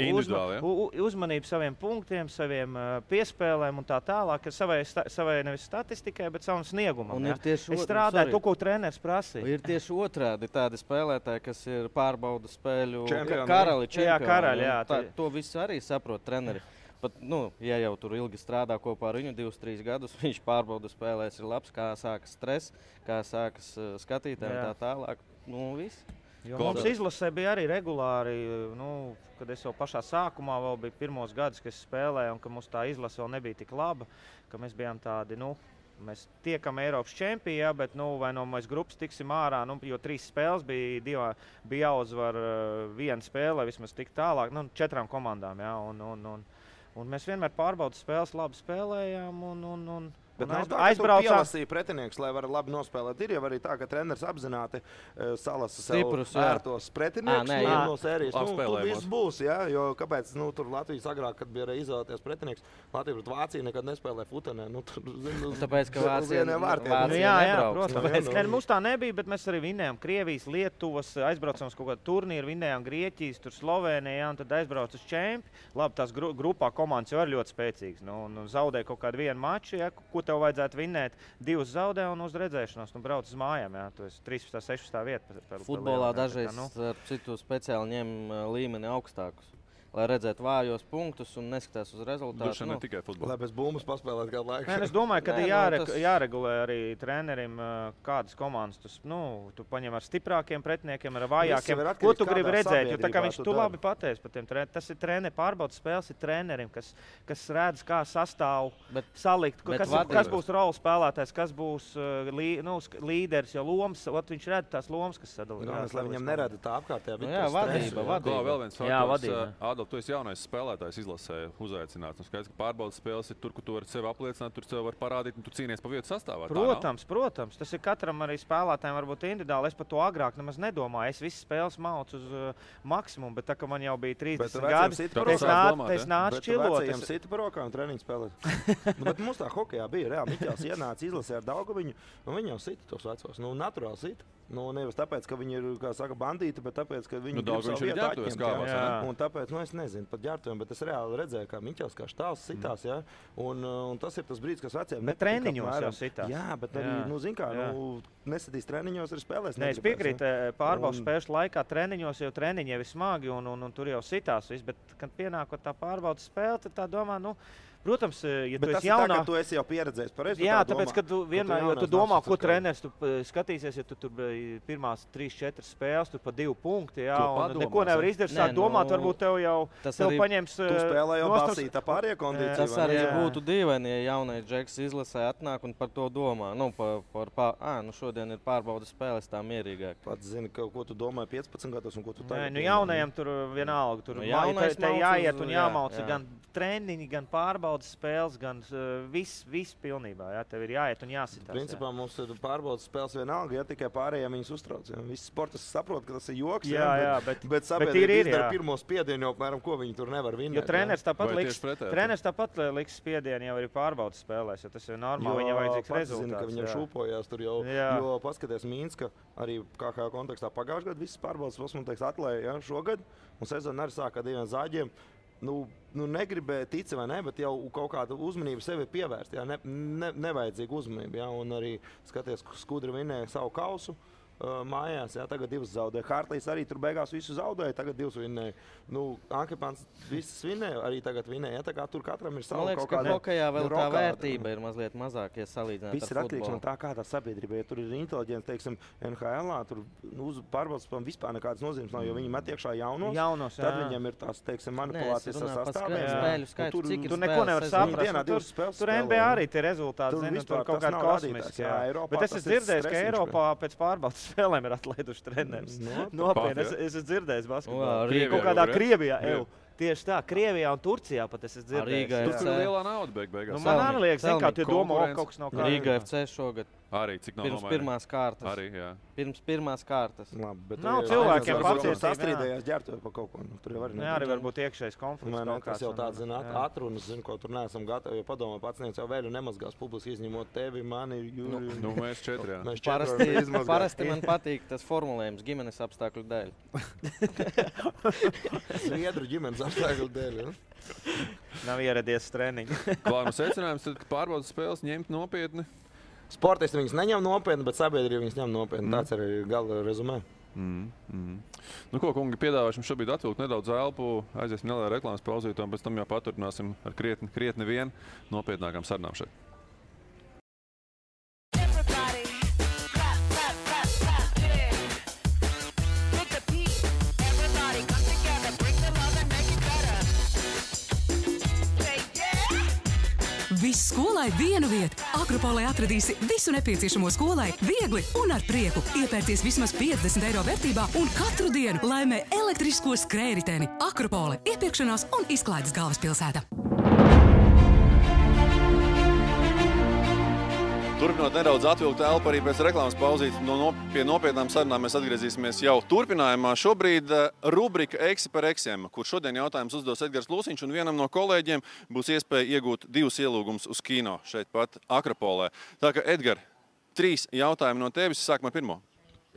uzmanību saviem punktiem, saviem piespēlēm un tā tālāk, savai nevis statistikai, bet savam sniegumam. Ja? Es strādāju to, ko treneris prasīja. Ir tieši otrādi tādi spēlētāji, kas ir pārbaudas spēļu karali, čempioni. To visu arī saprot treneri. Pat, ja jau tur ilgi strādā kopā ar viņu 2-3 gadus, viņš pārbauda spēlēs ir labs, kā sākas stress, kā sākas skatītājiem tā tālāk. Viss. Mums izlasē bija arī regulāri, kad es jau pašā sākumā vēl bija pirmos gadus, kad es spēlēju, un ka mums tā izlase vēl nebija tik laba, ka mēs bijām tādi, mēs tiekam Eiropas čempijā, bet vai no mēs grupas tiksim ārā, jo 3 spēles bija jāuzvar viena spēle, lai vismaz tik tālāk, 4 komandām, ja, un mēs vienmēr pārbaudas spēles labi spēlējām un Bet nav tā, ka tu pielasīji pretinieks, lai varētu labi nospēlēt. Ir jau arī tā, ka treneris apzināti salasa sev ērtos pretinieks no sērijas. Tur viss būs, ja? Jo kāpēc tur Latvijas agrāk, kad bija izvēlēties pretinieks, Latvija pret Vāciju nekad nespēlē futenē. Tāpēc, ka Vācija nebrauc. Protams. Mums tā nebija, bet mēs arī vinnējām Krievijas, Lietuvas, aizbraucām uz kaut kādu turnīru, vinnējām Grieķijas, tur Slovēnijā, un tad aizbrauc uz čempi. Labi, tās grupā komandas jau ir ļoti spēcīgas. Zaudēja kaut kādu vienu maču, ja, ko tev vajadzētu vinnēt, 2 zaudē un uz redzēšanos, brauc uz mājām, jā, tu esi 13. 16. vieta. Futbolā dažreiz ar citu speciāli ņem līmeni augstākus, lai redzētu vājos punktus un neskatās uz rezultātu. Duši ne tikai futbolā. Lai bez bumbas paspēlēt kādu laiku. Es domāju, ka jāregulē arī trenerim, kādas komandas tu paņem ar stiprākiem pretiniekiem, ar vājākiem. Ko tu gribi redzēt? Jo tā kā viņš tu labi pateici par tiem treneriem. Tas ir pārbaudas spēles ir trenerim, kas redz, kā sastāv salikt, kas būs roles spēlētājs, kas būs līderis, jo lomas, viņš redz tās lomas, kas sadalīt. Lai viņam nerada tā apkārtējā. Jā, vadība. Vēl viens faktors. tu esi jaunais spēlētājs izlasē uzaicināts. Skaidrs, ka pārbaudas spēles ir tur, kur tu vari sevi apliecināt, tur sevi var parādīt un tu cīnies pa vietu sastāvā. Protams. Tas ir katram arī spēlētājiem varbūt individuāli. Es par to agrāk nemaz nedomāju. Es visas spēles maucu uz maksimumu, bet tā, ka man jau bija 30 gadi, es nācu čilot. Viņam sita par rokām treniņu spēlēt. Bet mums tā hokejā bija reāli. Miķels ienāca izlasē ar Daugaviņu, un viņi jau sita tos vecos. Naturāli sita. Nevis tāpēc, ka viņi ir, kā saka, bandīti, bet tāpēc, ka viņi grib savu vietu atņemt. Un tāpēc, es nezinu par ģērbtuviem, bet es reāli redzēju, kā Miķels kā štāls sitās, ja? Un tas ir tas brīdis, kas veciem nepatīk. Bet treniņos jau sitās. Jā, bet arī, nesatīs treniņos, arī spēlēs. Es piekrītu, pārbaudas spēles laikā treniņos jau treniņi jau ir smagi un tur jau sitās viss, bet, kad pienākot tā pārbaudas spēle, tad tā domā, protams, ja tu esi jaunā... Tu esi jau pieredzējis par rezultātu. Jā, tāpēc, ka tu vienmēr, jo tu domā, ko treneris tu skatīsies, ja tu tur pirmās 3-4 spēles, tur pa 2 punkti, jā, un neko nevar izdarīt, sāk domāt, varbūt tev jau paņems... Tu spēlē jau basītā pārējā kondīcija. Tas arī būtu dīvaini, ja jaunais džeks izlasē atnāk un par to domā. Šodien ir pārbaudas spēles tā mierīgāk. Pats zini, ko tu domāji 15 gados un ko tu tagad. Jaunajiem tur vienalga, tur jāiet un jāmauca gan treniņi, gan pārbaudas spēles, gan viss pilnībā. Jā, tev ir jāiet un jāsitās. Principā mums ir pārbaudas spēles vienalga, ja tikai pārējiem viņus uztrauc. Ja. Visi sportisti saprot, ka tas ir joks, bet sabiedrība izdara pirmo spiedienu, apmēram, ko viņi tur nevar vinēt. Jo treneris tāpat liks spiedienu jau arī pārbaudas spēlēs, jo tas ir normāli, viņam vajadzīgs rezultāts. Zinu, ka viņam šūpojās tur jau, jo paskaties Mīnska, arī KHL kontekstā pagājušajā gadā visas pārbaudas spēles, man teiks, atlēja šogad, un sezona arī sāka ar 2 zāģiem. Negribēja tic vai ne, bet jau kaut kādu uzmanību sevi pievērst. Jā, nevajadzīgu uzmanību. Jā, un arī skaties, Skudra vinēja savu kausu mājās. Jā, tagad 2 zaudēja. Hārtlīs arī tur beigās visu zaudēja, tagad 2 vinēja. Ankepāns visas vinēja, arī tagad vinēja. Jā, tā kā tur katram ir savu kaut kāda... Man liekas, ka hokejā vēl tā vērtība ir mazliet mazāk, ja salīdzināt ar futbolu. Viss ir atkarīgs no tā, kādā sabiedrībā. Ja tur ir inteliģents, teiksim, NHL-ā, tur pārbaudas vispār nekādas nozīmes nav, jo viņi met iekšā jaunos, tad viņiem ir tās, teiksim, manipulācijas ar sastāviem. Tur neko nevar saprast. Tur NBA arī tie rezultāti, tur kaut kādi kosmiski. Bet es esmu dzirdējis, ka Eiropā pēc pārbaudas spēlēm ir atlaiduši treneris. Nopietni, es esmu dzirdējis basketbolu. Kaut kādā Krievijā. Tieši tā, Krievijā un Turcijā pat es esmu dzirdējis. Tur ir lielā nauda beigās. Man arī liekas, kā tie domā, kaut kas nav kā. Rīga FC šogad. Arī cik nav pirms pirmās kārtas. Arī, jā. Pirms pirmās kārtas. Labi, bet nav cilvēkiem pacietības sastrīdējās ģērbtuvi pa kaut ko. Tur jau arī varbūt iekšējs konflikts. Tas jau tāds, atrunas, ko tur neesam gatavi, jo padomā pacients jau vēl nemazgās publiski izņemot tevi, mani, Jūri. Mēs 4, jā. Parasti man patīk tas formulējums ģimenes apstākļu dēļ. Zviedru ģimenes apstākļu dēļ, ja? Nav ieradies treniņi. Klājuma secinājums, tad pārbaudas spēles ņemt nopietni. Sportisti viņus neņem nopietni, bet sabiedrība viņus ņem nopietni. Tāds arī gala rezumē. Ko, kungi, piedāvāšu jums šobrīd atvilkt nedaudz elpu, aiziesim nelielā reklāmas pauzītē, un pēc tam jau paturpināsim ar krietni vien nopietnākām sarunām šeit. Viss skolai vienu vietu. Akropolē atradīsi visu nepieciešamo skolai viegli un ar prieku. Iepērties vismaz 50 eiro vērtībā un katru dienu laimē elektrisko skrējriteni. Akropole – iepirkšanās un izklaides galvaspilsēta. Turpinot nedaudz atvilkt elpu arī pēc reklāmas pauzīt, pie nopietnām sarunām mēs atgriezīsimies jau turpinājumā. Šobrīd rubrika Eksi par eksiem, kur šodien jautājums uzdos Edgars Lūsiņš, un vienam no kolēģiem būs iespēja iegūt 2 ielūgumus uz kino šeit pat Akropolē. Tā kā, Edgar, 3 jautājumi no tevis, sākam ar pirmo.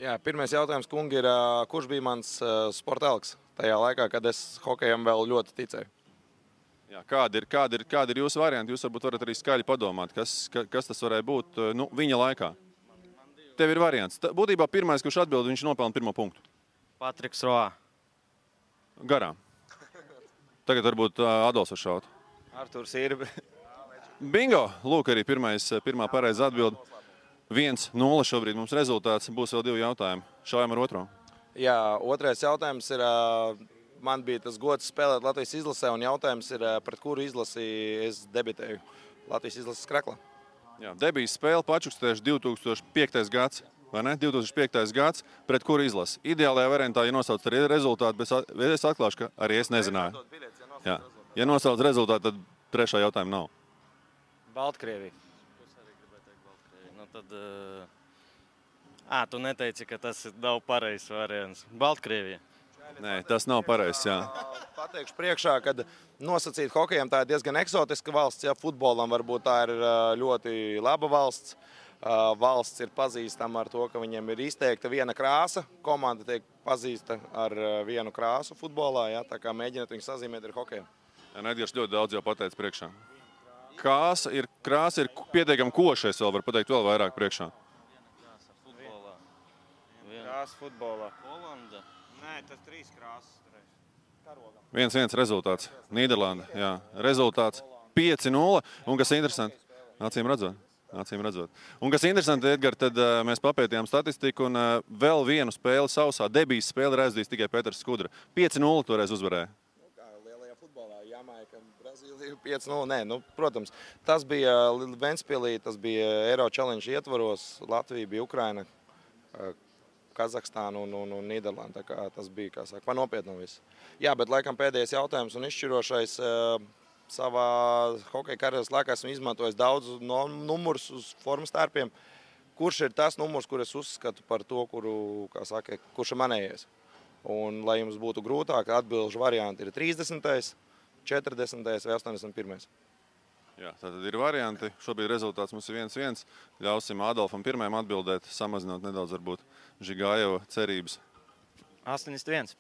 Jā, pirmais jautājums, kungi, ir, kurš bija mans sporta elks tajā laikā, kad es hokejam vēl ļoti ticēju? Jā, kādi ir jūsu varianti? Jūs varbūt varat arī skaļi padomāt, kas tas varēja būt viņa laikā. Tev ir variants. Būtībā pirmais, kurš atbild, viņš nopelna 1. punktu. Patriks Roā. Garām. Tagad varbūt Adolfs var šaut. Arturs ir. Bingo! Lūk, arī pirmā pareiza atbild. 1-0 šobrīd mums rezultāts. Būs vēl 2 jautājumi. Šaujam ar otro. Jā, otrais jautājums ir... Man bija tas gods spēlēt Latvijas izlasē, un jautājums ir, pret kuru izlasi es debitēju Latvijas izlases Kraklā. Jā, debijas spēle Pačukstieši 2005. gads. vai ne? 2005. gads, pret kuru izlasi. Ideālajā variantā, ja nosauc arī rezultātu, bet es atklāšu, ka arī es nezināju. Jā. Ja nosauc rezultātu, tad trešā jautājuma nav. Baltkrievija. Es arī gribēju teikt Baltkrievija. Nu tad... tu neteici, ka tas nav pareizs variants. Baltkrievija. Nē, tas nav pareizs, jā. Pateikšu priekšā, kad nosacīt hokejam tā ir diezgan eksotiska valsts, ja futbolam varbūt tā ir ļoti laba valsts. Valsts ir pazīstama ar to, ka viņiem ir izteikta viena krāsa. Komanda tiek pazīsta ar vienu krāsu futbolā, ja, tā kā mēģināt viņu sazīmēt ar hokejam. Jā, Edgars ļoti daudz jau pateica priekšā. Krāsa ir pietiekami košais, vēl var pateikt vēl vairāk priekšā. Krāsa futbolā. Holanda. Nē, tas 3 krāsas. 1-1 rezultāts. Nīderlanda, jā. Rezultāts 5-0. Un kas interesanti, acīm redzot. Un kas interesanti, Edgar, tad mēs papētījām statistiku un vēl vienu spēli sausā. Debijas spēli ir aizdījis tikai Pēters Skudra. 5-0 toreiz uzvarēja. Lielajā futbolā, Jamaika, Brazīlija 5-0. Nē, protams, tas bija Ventspilī, tas bija Eiro Challenge ietvaros. Latvija bija Ukraina, Kazahstāna un Nīderlanda. Tas bija, kā saka, nopietni viss. Jā, bet laikam pēdējais jautājums un izšķirošais savā hokeja karjeras laikā esmu izmantojis daudz numurus uz formas tērpiem. Kurš ir tas numurs, kur es uzskatu par to, kurš ir manējais? Un, lai jums būtu grūtāk, atbilžu varianti ir 30., 40. vai 81. Jā, tātad ir varianti. Šobrīd rezultāts mums ir 1-1. Ļausim Adolfam pirmajam atbildēt, samazinot nedaudz varbūt Žigājeva cerības. 81.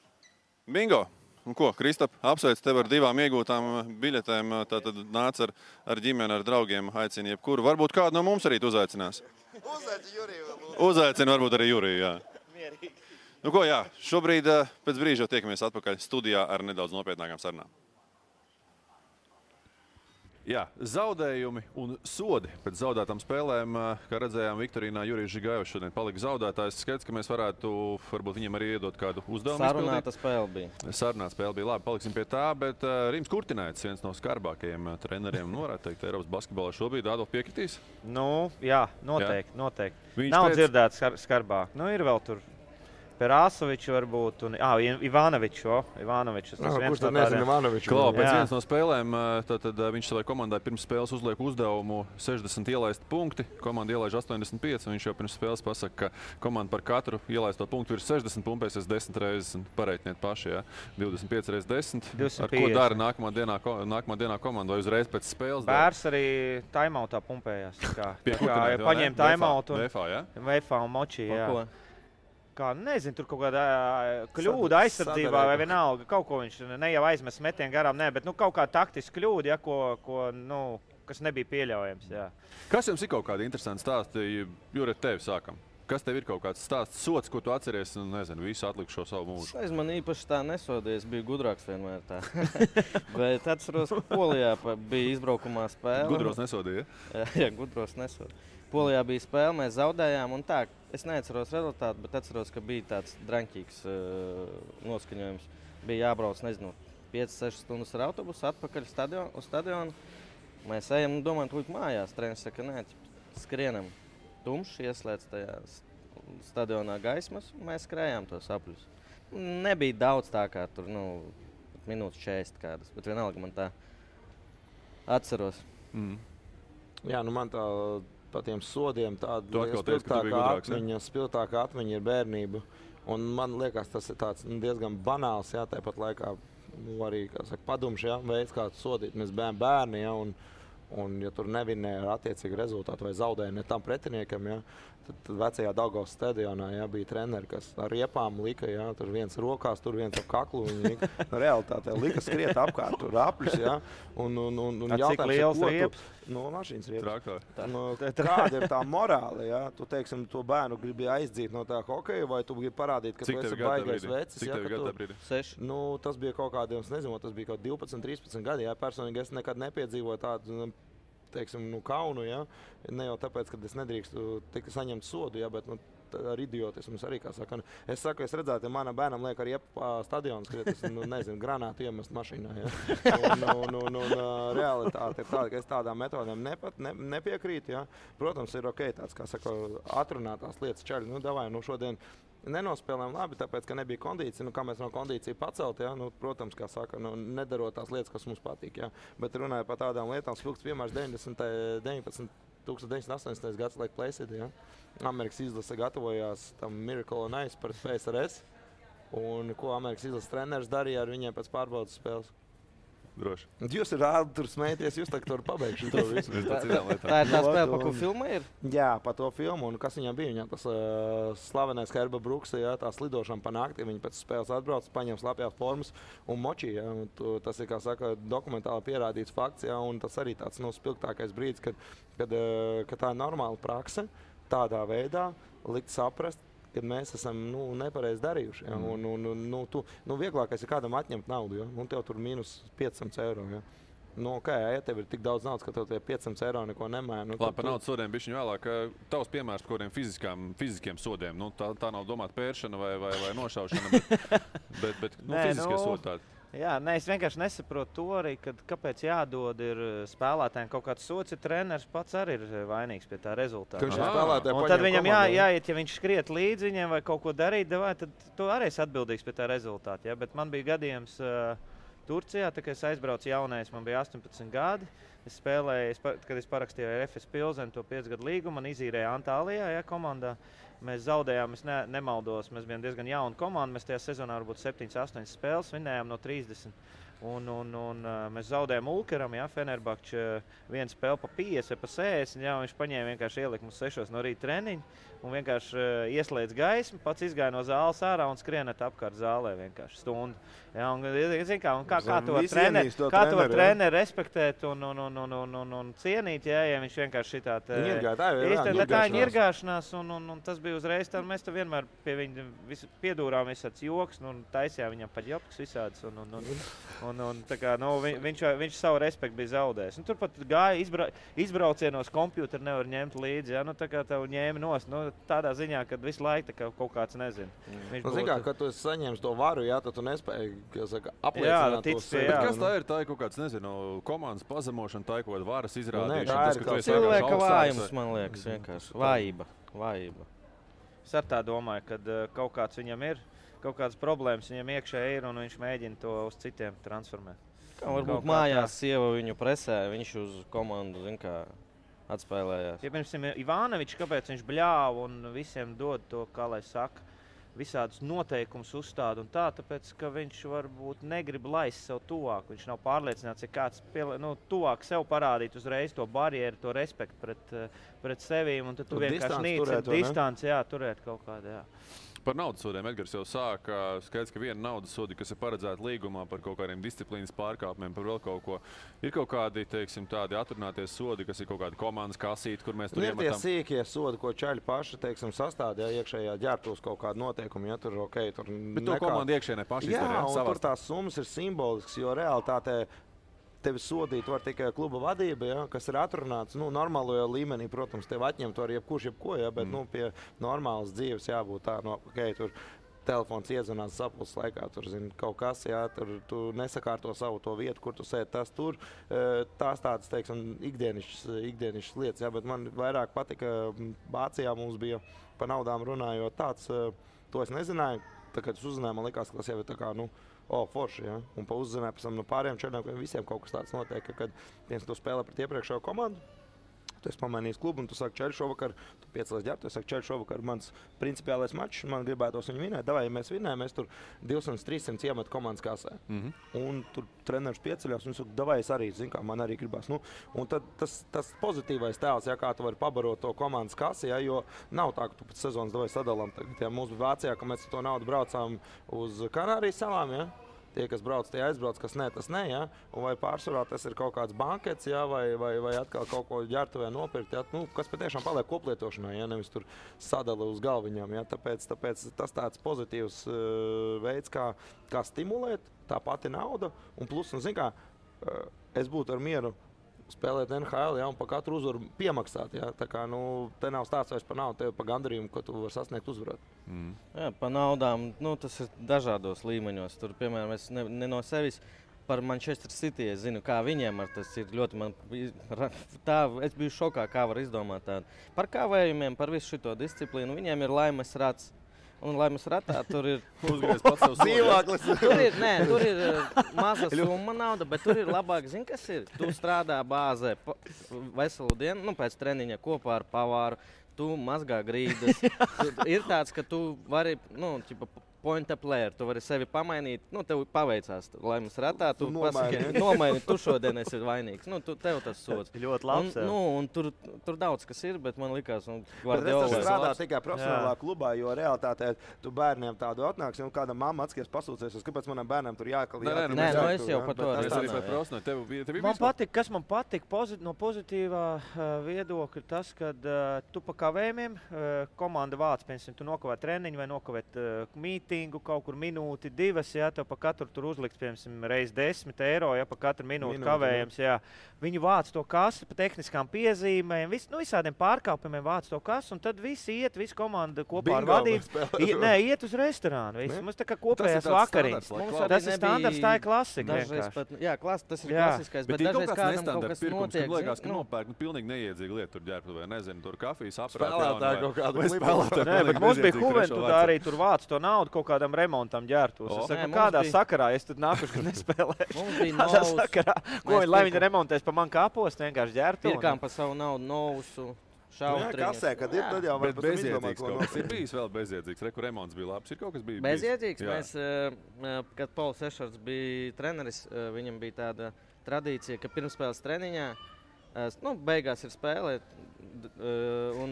Bingo! Un ko, Kristap, apsveic tev ar 2 iegūtām biļetēm. Tātad nāc ar ģimeni, ar draugiem, aicini jebkuru. Varbūt kādu no mums arī tu uzaicinās. Uzaicini Juriju. Uzaicini varbūt arī Juriju, jā. Mierīgi. Nu ko, jā, šobrīd pēc brīža jau tiekamies atpakaļ studijā ar nedaudz nopietnākām sarunām. Jā, zaudējumi un sodi pēc zaudētām spēlēm, kā redzējām, Viktorīnā Jurijs Žigājevs šodien palika zaudētājs. Skaidrs, ka mēs varētu varbūt viņam arī iedot kādu uzdevumu. Sarunāta spēle bija. Sarunāta spēle bija. Labi, paliksim pie tā, bet Rims Kurtināits, viens no skarbākajiem treneriem, varētu teikt, Eiropas basketbolā šobrīd. Adolf, piekritīs? Nu, jā, noteikti. Nav dzirdēts skarbāk. Nu, ir vēl tur Perasovičs varbūt, un Ivanovičs. Kurš tad nezina Ivanoviču? Klau, pēc vienas no spēlēm tad viņš savai komandai pirms spēles uzliek uzdevumu 60 ielaist punkti. Komanda ielaiž 85, un viņš jau pirms spēles pasaka, ka komanda par katru ielaisto punktu ir 60 pumpēsies 10 reizes, un pareitniet paši, jā. 25 reizes 10. 250. Ar ko dara nākamā dienā komanda, vai uzreiz pēc spēles? Bērs arī timeoutā pumpējās. Paņēma timeoutu un Veifā un Močī, jā. Kā, nezinu, tur kaut kāda kļūda aizsardzībā vai vienalga. Kaut ko viņš ne jau aizmes metienu garām, bet kaut kā taktiski kļūda, kas nebija pieļaujams. Jā. Kas jums ir kaut kādi interesanti stāsti? Jure, tevi sākam. Kas tev ir kaut kāds stāsts, sots, ko tu atceries un, nezinu, visu atlikušo savu mūžu? Es man īpaši tā nesodīju, es biju gudrāks vienmēr tā. Bet atceros, ka Polijā bija izbraukumā spēle. Gudros nesodīja? Jā, gudros nesodīja. Polijā bija spēle, mēs zaudējām, un tā, es neatceros rezultātu, bet atceros, ka bija tāds draņķīgs noskaņojums. Bija jābrauc, 5-6 stundas ar autobusu atpakaļ uz stadionu. Mēs ejam, domājam, tūlīt mājās. Treneris saka, nē, skrienam. Tumšs, ieslēdz tajā stadionā gaismas, un mēs skrējām tos apļus. Nebija daudz tā kā tur, minūtes 40 kādas, bet vienalga man tā atceros. Jā, man tā... Pa tiem sodiem tāda spilgtākā atmiņa ir bērnība. Un man liekas, tas ir tāds diezgan banāls, jā, tāpat laikā arī, kā saka, padumš, jā, veids, kā sodīt. Mēs bērni, jā, un ja tur nevinēja ar attiecīgu rezultātu vai zaudēja ne tam pretiniekam, jā, tad vecajā Daugavas stadionā, jā, bija treneri, kas ar riepām lika, jā, tur viens rokās, tur viens ap kaklu. Realitātē lika skriet apkārt, tur apļus, jā. Un cik liels rieps? Mašīnas rieps. Kāda ir tā morāla, jā? Tu, teiksim, to bērnu gribi aizdzīt no tā hokeja, vai tu gribi parādīt, ka tu esi baigais vecis? Cik tev gadu tā brīdi? 6. Tas bija kaut kādiem, es nezinu, tas bija kaut 12, 13 gadi, jā. Personīgi es nekad nepiedzīvoju tādu teiksim, kaunu, ja? Ne jau tāpēc, ka es nedrīkstu saņemt sodu, ja? Bet ar idiotismu arī, kā saka. Es saku, es redzētu, ja manam bērnam liek arī stadionu skriet, nezinu, granātu iemest mašīnā, ja? Un realitāte ir tāda, ka es tādām metodēm nepiekrītu, ja? Protams, ir ok, tāds, kā saka, atrunātās lietas čaļi, davai, šodien nenospēlējām labi, tāpēc, ka nebija kondīcija. Kā mēs no kondīcija pacelt, ja? Protams, kā saka, nedarot tās lietas, kas mums patīk. Ja? Bet runāju par tādām lietām, spilgts piemērs 1980. gads, like Placid, ja? Amerikas izlase gatavojās tam Miracle on Ice pret PSRS. Un ko Amerikas izlases treneris darīja ar viņiem pēc pārbaudas spēles? Droši. Jūs rādi tur smēties, jūs tagad tur pabeigšu to visu. Tā ir tā spēle, pa ko filma ir? Jā, pa to filmu. Un kas viņam bija? Viņam tas slavenais Herba Brooks, ja, tā slidošana pa nakti. Viņi pēc spēles atbrauc, paņem slapjās formas un močī. Ja, un tas ir, kā saka, dokumentāli pierādīts fakts. Ja, un tas arī tāds spilgtākais brīdis, kad tā ir normāla prakse tādā veidā likt saprast, kad mēs esam nepareizi darījuši. Ja? Vieglākais ir kādam atņemt naudu, ja? Un tev tur minus 500 eiro. Ja? Ja tev ir tik daudz naudas, ka tev tie 500 eiro neko nemaina. Labi, par naudas sodiem bišķiņ vēlāk. Tavs piemērs par kādiem fiziskiem sodiem. Tā nav domāta pēršana vai nošaušana, bet fiziskie sodi tādi. Jā, es vienkārši nesaprotu to arī, kāpēc jādod spēlētājiem kaut kāds sots, ja treneris pats arī ir vainīgs pie tā rezultāta. Un tad viņam jāiet, ja viņš skriet līdzi viņiem vai kaut ko darīt, tad tu arī esi atbildīgs pie tā rezultāta. Ja? Bet man bija gadījums Turcijā, kad es aizbraucu jaunais, man bija 18 gadi. Es spēlēju, kad es parakstīju ar FS Pilseni to 5 gadu līgumu, man izīrēja Antālijā, ja, komandā. Mēs zaudējām, es nemaldos, mēs bijām diezgan jauna komanda. Mēs tajā sezonā varbūt 7-8 spēles vinējām no 30. Un mēs zaudējām Ulkeram, ja, Fenerbahče vienu spēli pa 50 vai pa 60. Ja, viņš paņēma vienkārši ielika mums 6 no rīta treniņu un vienkārši ieslēdz gaismu, pats izgāja no zāles ārā un skrienēt apkārt zālē vienkārši stundu. Ja, kā to treneri respektēt un cienīt, ja viņš vienkārši šitāt. Tā ir ņirgāšanās un tas bija uzreiz tā, mēs vienmēr pie viņa piedūrām visāds joks un taisījām viņam pat jopks visāds viņš savu respektu bija zaudējis. Turpat gāja izbraucienos kompjūteri nevar ņemt līdzi, ja, tā kā tev ņēma nost, tādā ziņā, kad visu laiku kaut kāds nezin. Kad tu esi saņēmis to varu, jā, tad tu nespēji apliecināt to sevi. Bet kas tā ir? Tā ir kaut kāds, nezinu, komandas pazemošana, tā ir kaut kāda varas izrādīšana. Tā ir cilvēka vājums, man liekas, vienkārši. Vājība. Es ar tā domāju, ka kaut kāds viņam ir, kaut kādas problēmas viņam iekšē ir un viņš mēģina to uz citiem transformēt. Varbūt mājās sieva viņu presē, viņš uz komandu, atspēlējās. Ja, piemēram, Ivanovičs, kāpēc viņš bļāva un visiem dod to, kā lai saka, visādus noteikumus uzstāda un tā, tāpēc, ka viņš varbūt negrib laist sev tuvāk. Viņš nav pārliecināts, ja kāds tuvāk sev parādīt uzreiz to barjeru, to respektu pret sevīm, un tad tu vienkārši nīcini distanci, turēt kaut kādu, jā. Par naudas sodiem Edgars jau sāka. Skaidrs, ka viena naudas sodi, kas ir paredzēta līgumā par kaut kādiem disciplīnas pārkāpumiem, par vēl kaut ko. Ir kaut kādi, teiksim, tādi atrunāties sodi, kas ir kaut kādi komandas kasīti, kur mēs tur iemetam. Ir tie sīkie sodi, ko čaļi paši, teiksim, sastādīja iekšējā ģērbtos kaut kādu noteikumu, ja tur ok. Bet to komanda iekšēnē paši izdarīja. Jā, un tur tās summas ir simbolisks, jo realitātē tevi sodīt var tikai kluba vadība, ja, kas ir atrunāts normālajā līmenī. Protams, tev atņemt var jebkurš jebko, ja, bet pie normālas dzīves jābūt tā, tur telefons iedzvanās sapulces laikā, tur kaut kas, ja, tur tu nesakārto savu to vietu, kur tu sēdi, tas tur. Tās tādas, teiksim, ikdienišas lietas, ja, bet man vairāk patika, Vācijā mums bija par naudām runājot tāds, to es nezināju, tā, kad es uzzināju, man likās, ka tas jau ir tā kā, forši, ja? Un pa uzzināju pēc tam no pārējiem čaļiem, ka visiem kaut kas tāds notiek, ka, kad viens to spēlē pret iepriekšējo komandu, tu esi pamainījis klubu un tu saki, čaļi šovakar, tu piecēlies ģērbtu, es saku, čaļi šovakar mans principiālais mačs, man gribētos viņu vinēt, davai, ja mēs vinējam, mēs tur 200-300 iemet komandas kasē. Un tur treneris pieceļās un saka, davai, es arī, kā man arī gribās. Un tad tas pozitīvais tēls, ja, kā tu vari pabarot to komandas kasi, ja, jo nav tā, ka tu pēc sezonas davai sadalām. Tagad, ja mums bija Vācijā, ka mēs to naudu braucām uz Kanārijas salām, ja. Tie, kas brauc, tie aizbrauc, kas ne, tas ne, ja? Un vai pārsvarā tas ir kaut kāds bankets, ja? vai atkal kaut ko ģērbtuvē nopirkt, ja? Kas patiešām paliek koplietošanai, ja? Nevis tur sadala uz galviņām. Ja? Tāpēc tas tāds pozitīvs veids, kā stimulēt, tā pati nauda. Un plus, es būtu ar mieru spēlēt NHL, ja, un par katru uzvaru piemaksāt. Ja. Tā kā, te nav stāsts vairs par naudu, tev par gandarījumu, ko tu vari sasniegt uzvarot. Jā, par naudām, tas ir dažādos līmeņos. Tur, piemēram, es ne no sevis par Manchester City, es zinu, kā viņiem ar tas ir ļoti es biju šokā, kā var izdomāt tādu. Par kāvējumiem, par visu šito disciplīnu, viņiem ir laimes rats. Un laimes ratā tur ir uzgriezt pats savus dzīvāklis. Tur ir maza summa nauda, bet tur ir labāk, zini, kas ir. Tu strādā bāzē veselu dienu, pēc treniņa kopā ar pavāru, tu mazgā grīdas. Ir tāds, ka tu vari, point a player, tu vari sevi pamainīt, tev paveicās laimes ratā, tu nomaini, tu šodien esi vainīgs, tev tas sods. Ļoti labs. Un tur daudz kas ir, bet man likās, tas strādā tikai profesionālā klubā, jo realitātē tu bērniem tādu atnāks, kāda mamma atskies pasūcēsies, kāpēc manam bērnam tur jākalīt. Nē, es jau par to redzu. Kas man patīk no pozitīvā viedokļa, tas, kad tu pa kavējumiem komanda vāc, piemēram, tu nokavē treniņu vai nokavēt kaut kur minūti, 2, ja tev pa katru tur uzliks, piemēram, reiz 10 eiro, ja pa katru minūti kavējums, jā. Viņi vāc to kasu pa tehniskām piezīmēm, visādiem pārkāpumiem vāc to kasu, un tad visi komanda kopā ar vadību. Iet uz restorānu. Mums tā kā kopējās vakariņas. Tas ir standarts, tā ir klasika. Jā, tas ir klasiskais, bet dažreiz kādam kaut kas notiek. Man liekas, ka nopērk pilnīgi neiedzīga lieta tur ģērbtuvē, nezinu, tur kafijas aprāt. Bet mums bija Juventudā arī tur vāc to naudu kaut kādam remontam ģērbtos. Es saku, kādā sakarā es tad nākuši, kad nespēlēju. Mums bija novus. Lai viņi remontēs pa man kāpos, vienkārši ģērbtu. Pirkām pa savu naudu novusu. Kasē, kad ir, tad jau var pat bezjēdzīgs kaut kas. Ir bijis vēl bezjēdzīgs. Reku remonts bija labs. Ir kaut kas bija bezjēdzīgs. Mēs, kad Pauls Ešards bija treneris, viņam bija tāda tradīcija, ka pirmspēles treniņā, beigās ir spēlē, un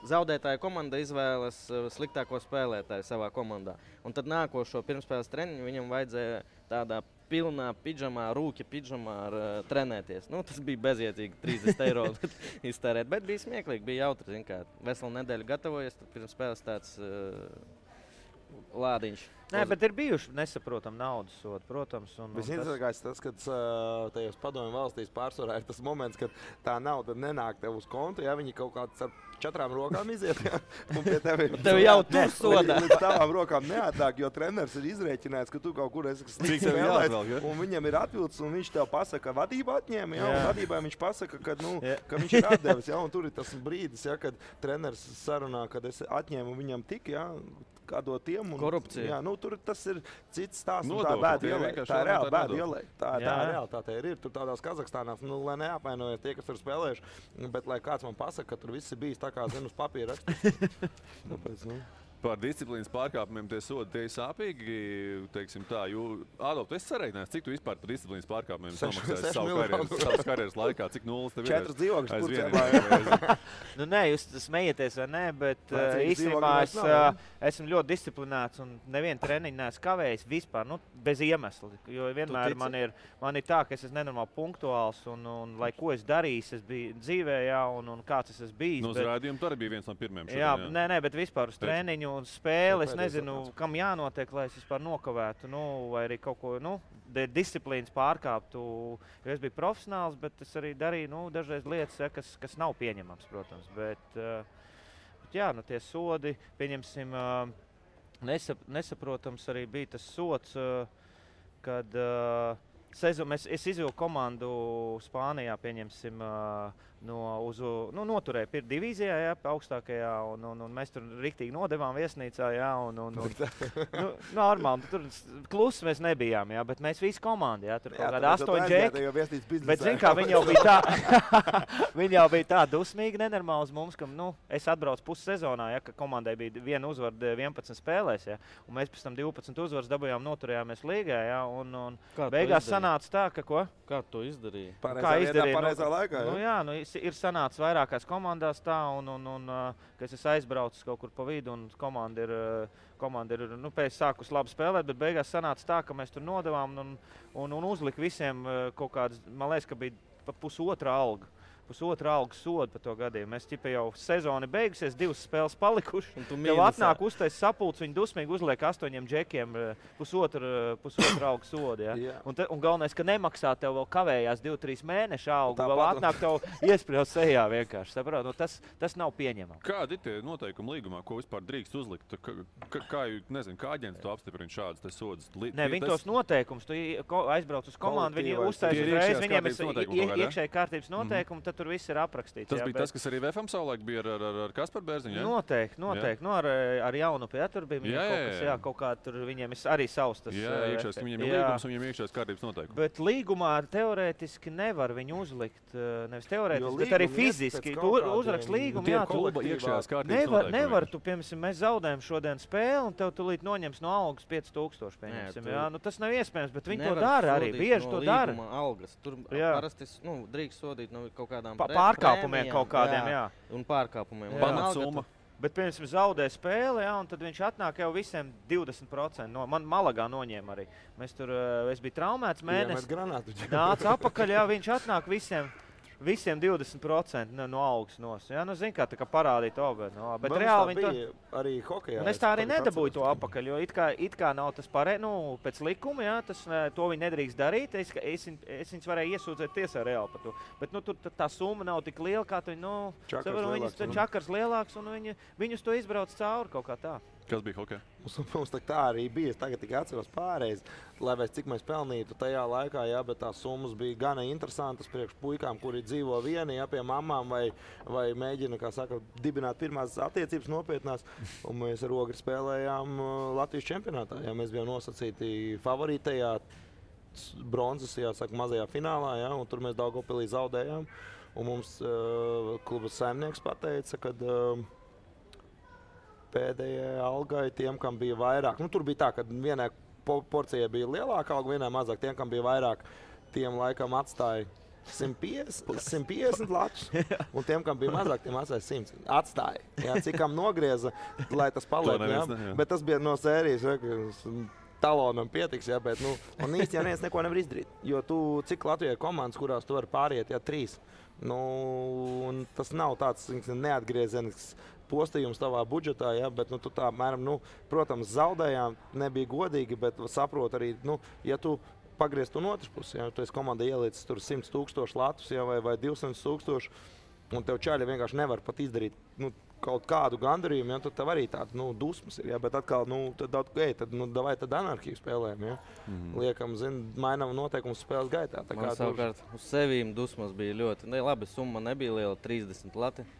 zaudētāja komanda izvēlas sliktāko spēlētāju savā komandā. Un tad nākošo pirmspēles treniņu viņam vajadzēja tādā pilnā pidžamā, rūkja pidžamā trenēties. Tas bija bezjēdzīgi 30 eiro iztērēt, bet bija smieklīgi, bija jautri, zin kā. Veselu nedēļu gatavojies, tad pirms spēles tāds lādiņš. Nē, bet ir bijuši nesaprotam naudas sodi, protams. Visinteresantākais tas, kad tajos padomju valstīs pārsvarā ir tas moments, kad tā nauda nenāk tev uz kontu, ja viņi kaut kāds ar 4 rokām iziet, ja, un pie tev jau tur sodā. Līdz tavām rokām neatnāk, jo treneris ir izrēķinājis, ka tu kaut kur esi slikts spēlēs, un viņam ir atvilcis, un viņš tev pasaka, ka vadība atņēma, ja, un vadībai viņš pasaka, ka viņš ir atdevis, ja, un tur ir tas brīdis, ja, kad treneris sarunā, kad es atņēmu viņam tik, ja, kādot tiem. Korupcija. Jā, tur tas ir cits stāsts. Tā ir bēda ielai. Tā ir reāli bēda ielai. Tā realitāte ir. Tur tādās Kazahstānās, lai neapvainojas tie, kas tur spēlējuši, bet lai kāds man pasaka, ka tur viss ir bijis tā kā zinu uz papīra rakstīts. Tāpēc, Par disciplīnas pārkāpumiem tie sodi, tie ir sāpīgi, teiksim tā, Ādolf, tu esi sarēķinājis, cik tu vispār par disciplīnas pārkāpumiem samaksāji savas karjeras laikā, cik nulles tev ir? 4 dzīvokļus Turcijā. Nē, jūs smējieties vai nē, bet īstenībā esmu ļoti disciplinēts un nevienu treniņu neesmu kavējis vispār, bez iemesla. Jo vienmēr man ir tā, ka es esmu nenormāli punktuāls un lai ko es darīju, es biju dzīvē, jā, un kāds es esmu bijis. Uz rādījumu tu arī bija viens no pirmiem šodien, jā. Nē, bet vispār uz treniņu un spēli, es nezinu, kam jānotiek, lai es vispār nokavētu, vai arī kaut ko, disciplīnas pārkāptu, jo es biju profesionāls, bet es arī darīju, dažreiz lietas, ja, kas nav pieņemams, protams, bet jā, tie sodi, pieņemsim, nesaprotams arī bija tas sods, kad es izvilku komandu Spānijā, pieņemsim, noturēja divīzijā, jā, augstākajā, un mēs tur riktīgi nodevām viesnīcā, jā, normāli, tur klusi mēs nebijām, jā, bet mēs visi komandi, jā, tur kaut kādā 8 džeki, bet zin kā, viņi jau bija tā dusmīgi nenormāli uz mums, ka, es atbraucu pussezonā, jā, ka komandai bija 1 uzvara 11 spēlēs, jā, un mēs pēc tam 12 uzvaras dabūjām, noturējāmies līgā, jā, un beigās sanāca tā, ka ko? Kā tu izdarīji? Pareizā laikā, jā? Ir sanācis vairākās komandās tā, ka es aizbraucu kaut kur pa vidu, un komanda ir pēc sākus labi spēlēt, bet beigās sanāca tā, ka mēs tur nodevām un uzlika visiem kaut kādas, man liekas, ka bija pa pusotra alga. pusotra algas sodu par to gadījumu. Mēs ķipa jau sezoni beigusies, 2 spēles palikuši. Tev atnāk uztais sapulcs, viņi dusmīgi uzliek 8 džekiem pusotra algas sodu. Ja? Un galvenais, ka nemaksā tev vēl kavējās 2-3 mēnešu algu, vēl atnāk tev iespriezt sejā vienkārši. Saprot? Nu, tas nav pieņemami. Kādi ir tie noteikumi līgumā, ko vispār drīkst uzlikt? Kā aģents to apstiprina šādas sodas? Nē, viņi tos noteikumus, tu aizbrauc uz komandu, viņi uztais uzreiz, viņiem ir iekšēji kārtības noteikumi, tad tur viss ir aprakstīts. Tas bija tas, kas arī VFM savulaik bija ar Kasparu Bērziņu, ja? Noteikti. Nu, ar Jaunupi, ja, tur bija viņiem kaut kā, tur viņiem ir arī savs tas. Jā, iekšējais, viņiem ir līgums un viņiem iekšējais kārtības noteikumi. Bet līgumā teorētiski nevar viņu uzlikt, nevis teorētiski, bet arī fiziski. Tu uzrakst līgumu, jā, tu iekšējās kārtības noteikumi. Nevar, tu, piemēram, mēs zaudējam šodien spēli un tev tulīt noņems no algas 5000, pieņemsim, jā. Nu, tas nav iespējams, bet viņi to dara arī, bieži to dara. Algas. Tur parasti drīkst sodīt no kaut kādām pārkāpumiem kaut kādiem, jā. Un pārkāpumiem. Pamatsumma. Bet, piemēram, zaudē spēli, jā, un tad viņš atnāk jau visiem 20%. Man Malagā noņēma arī. Es biju traumēts mēnesi. Nāca apakaļ, jā, viņš atnāk visiem 20% no algas nos. Jā, nu, zin kā, tā kā parādīt obe. No, bet reāli viņi to arī hokejā. Un es tā arī nedabūju to apakaļ, jo it kā nav tas pēc likuma, jā, to viņi nedrīkst darīt. Es viņus varēju iesūdzēt tiesā reāli par to. Bet, nu, tur tā summa nav tik liela, kā tu, nu, čakars lielāks, un viņus to izbrauc cauri kaut kā tā. Kas bija hokejā? Mums tā arī bija. Es tagad tikai atceros pārreiz, lai mēs cik mēs pelnītu tajā laikā, jā, bet tās summas bija gana interesantas priekš puikām, kuri dzīvo vieni, jā, pie mamām vai mēģina, kā saka, dibināt pirmās attiecības nopietnās. Un mēs ar Ogri spēlējām Latvijas čempionātā. Jā, mēs bijām nosacīti favorītajā bronzas, jāsaka, mazajā finālā, jā, un tur mēs Daugavpilī zaudējām. Un mums kluba saimnieks pateica, kad pēdējai algai tiem, kam bija vairāk. Nu, tur bija tā, ka vienai porcijai bija lielāka alga, vienai mazāk. Tiem, kam bija vairāk, tiem laikam atstāja 150 latus. Un tiem, kam bija mazāk, tiem atstāja 100. Atstāja. Jā, cik kam nogrieza, lai tas paliek. Bet tas bija no sērijas, talonam pietiks, jā, bet, nu, un īsti jau neviens neko nevar izdarīt. Jo cik Latvijai komandas, kurās tu vari pāriet, jā, 3. Nu, un tas nav tāds neatgriezenisks postījums tavā budžetā, ja, bet tu tā, mēram, protams, zaudējām, nebija godīgi, bet saprot arī, ja tu pagrieztu no otras puses, ja tu esi komanda ielicis tur 100 000 latus, ja, vai 200 000, un tev čaļi vienkārši nevar pat izdarīt kaut kādu gandarījumu, ja, tad tev arī tāda dusmas ir, ja, bet atkal, tad anarhiju spēlējam, ja. Liekam, mainām noteikumus spēles gaitā. Man savukārt uz sevīm dusmas bija ļoti, labi, summa nebija liela, 30 lati.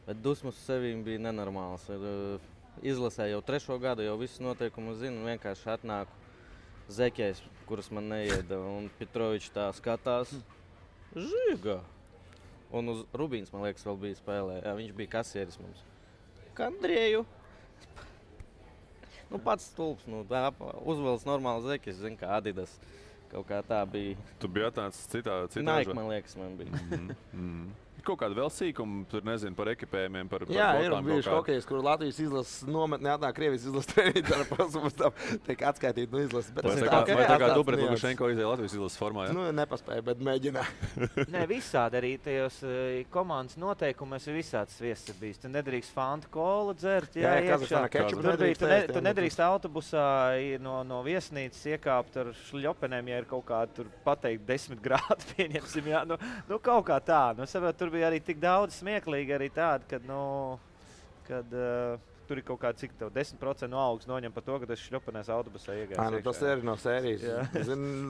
Bet dusmas uz sevīm bija nenormāls. Izlasēju jau 3. gadu, jau visus noteikumus zinu. Vienkārši atnāku zeķēs, kuras man neieda. Un Petrovičs tā skatās. Žiga! Un uz Rubīns, man liekas, vēl bija spēlē. Jā, viņš bija kasieris mums. Kandrieju! Pats stulps. Uzvelc normāli zeķis, zinu, kā Adidas. Kaut kā tā bija. Tu biji atnācis citā Nike, man liekas, man bija. Kaut kāda vēl sīkuma, tur nezinu, par ekipējumiem, par jā, ir bijuši hokejs, kur Latvijas izlases nometnē atnāk Krievijas izlases treniņš ar pasaules tam tiek atskaitīt no izlases. Vai tā kā Dubret Lukašenko izēja Latvijas izlases formā, jā? Nepaspēja, bet mēģinā. Nē, visādi arī tajos komandas noteikumos ir visāds sviests bijis. Tu nedrīkst Fanta kolu dzert, jā, iekšā. Tu nedrīkst autobusā no viesnīcas iekāpt ar šļopenēm, ja ir kaut kā tur pateikt 10 grādi, pieņemsim, jā. Kaut kā tā. Tur bija arī tik daudz smieklīgi arī tādi, kad tur ir kaut kā cik tev 10% no algas noņem par to, ka tas šļopenēs autobusā iegājis. Tas ir no sērijas.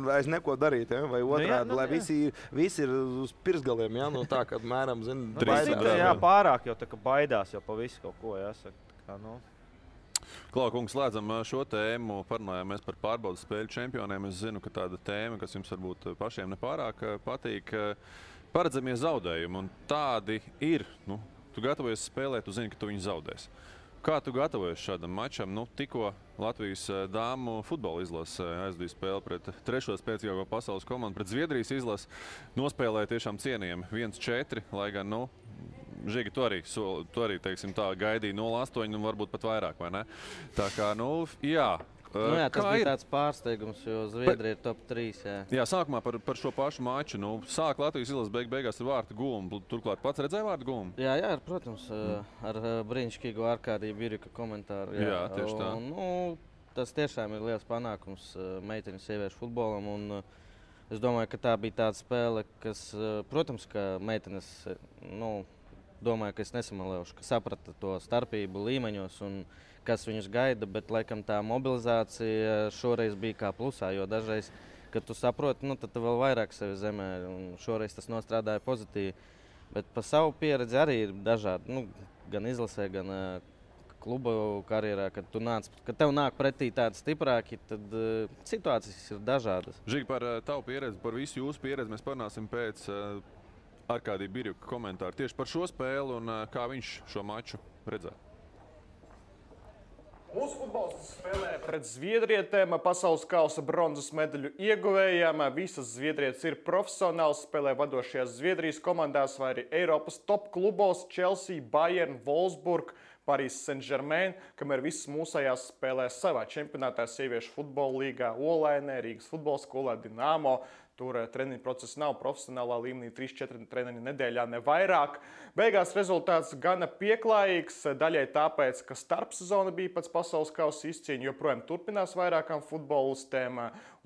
Vairs neko darīt, ja? Vai otrādi, lai visi ir uz pirsgaliem, ja? Tā, kad mēram, baidās. Jā, pārāk jau tā, ka baidās jau pa visu kaut ko, jāsaka. Klau, kungs, slēdzam šo tēmu, parunājāmies par pārbaudas spēļu čempioniem. Es zinu, ka tāda tēma, kas jums varbūt pašiem nepārāk patīk, paredzamie zaudējumi, un tādi ir. Tu gatavojies spēlēt, tu zini, ka tu viņu zaudēsi. Kā tu gatavojies šādam mačam? Tikko Latvijas dāmu futbola izlase aizdīja spēli pret 3. spēcīgāko pasaules komandu, pret Zviedrijas izlasi, nospēlēja tiešām cienījami 1-4, lai gan, Žigi, tu arī teiksim tā, gaidīja 0-8 un varbūt pat vairāk, vai ne? Tā kā, jā. Jā, tas bija tāds pārsteigums, jo Zviedrija ir top 3. Jā, sākumā par šo pašu maču. Sāk Latvijas izlases beigās ar vārtu gūmu. Turklāt pats redzēja vārtu gūmu? Jā, protams, ar brīnišķīgu Arkādiju Birika komentāru. Jā, tieši tā. Tas tiešām ir liels panākums meiteņu sieviešu futbolam. Un, es domāju, ka tā bija tāda spēle, kas, protams, ka meitenes, domāju, ka es nesamalējuši, ka saprata to starpību līmeņos un kas viņus gaida, bet laikam tā mobilizācija šoreiz bija kā plusā, jo dažreiz, kad tu saproti, tad tu vēl vairāk sevi zemē, un šoreiz tas nostrādāja pozitīvi. Bet pa savu pieredzi arī ir dažādi, gan izlasē, gan kluba karjerā, kad tev nāk pretī tādi stiprāki, tad situācijas ir dažādas. Žīgi, par tavu pieredzi, par visu jūsu pieredzi mēs parunāsim pēc Arkādija Birjuka komentāru tieši par šo spēli un kā viņš šo maču redzēja. Mūsu futbolists spēlē pret zviedrietēm, pasaules kausa bronzas medaļu ieguvējām. Visas zviedrietes ir profesionāls, spēlē vadošajās Zviedrijas komandās vai arī Eiropas top klubos Chelsea, Bayern, Wolfsburg, Paris Saint-Germain, kamēr visas mūsējās spēlē savā čempionātā sieviešu futbola līgā Olainē, Rīgas futbola skolā Dinamo. Tur treniņu process nav profesionālā līmenī, 3-4 treniņu nedēļā, ne vairāk. Beigās rezultāts gana pieklājīgs, daļai tāpēc, ka starpsezona bija pēc pasaules kausa izcīņa, joprojām turpinās vairākām futbolistēm.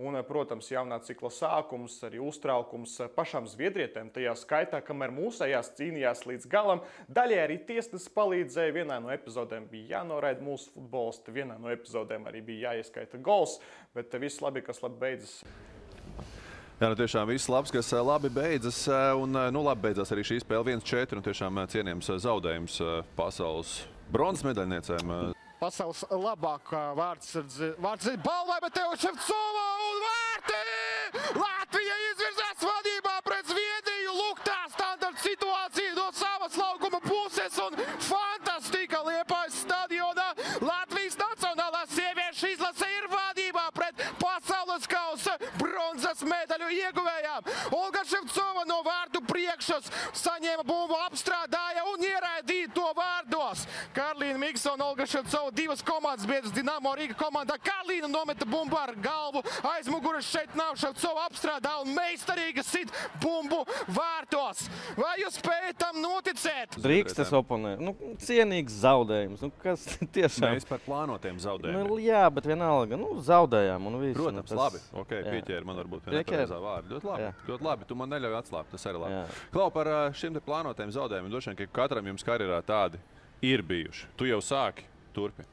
Un, protams, jaunā cikla sākums, arī uztraukums pašām zviedrietēm tajā skaitā, kamēr mūsējās cīnījās līdz galam. Daļai arī tiesnesis palīdzēja, vienā no epizodēm bija jānoraida mūsu futbolisti, vienā no epizodēm arī bija jāieskaita gols, bet viss labi, kas labi beidzas. Jā, tiešām viss labs, kas labi beidzas. Un labi beidzās arī šī spēle 1-4. Tiešām cienījams zaudējums pasaules bronzas medaļniecēm. Pasaules labākā vārds ir balvai, bet tev Ševcova un vārti! Latvija izvirzās vadībā pret Zviedriju. Lūk, tā standarta situācija no savas laukuma puses un fantastika Liepājas stadionā. Latvijas nacionālā sieviešu izlase ir vadībā pret pasaules kausa bronzas medaļu ieguvējām. Olga Ševcova no vārdu priekšas saņēma bumbu, apstrādāja un ieraidīja to vārdos. Karlīna Miksona, Olga Ševcova, divas komandas biedras Dinamo Rīga komandā. Karlīna nometa bumbu ar galvu, aizmuguras šeit nav, Ševcova apstrādā un meistarīgi sit bumbu vārtos. Vai jūs spējat tam noticēt? Drīkst es oponēju. Cienīgs zaudējums. Kas tiešām? Mēs par plānotiem zaudējumiem. Jā, bet vienalga, zaudējām un viss. Protams, labi. Pieķēri man varbūt vienā pareizā vārdu. Ļoti labi. Tu man neļauj atslābt, tas arī labi. Klau, par šiem te plānotiem zaudējumiem, droši vien, ka katram jums karjerā tādi ir bijuši. Tu jau sāki, turpini.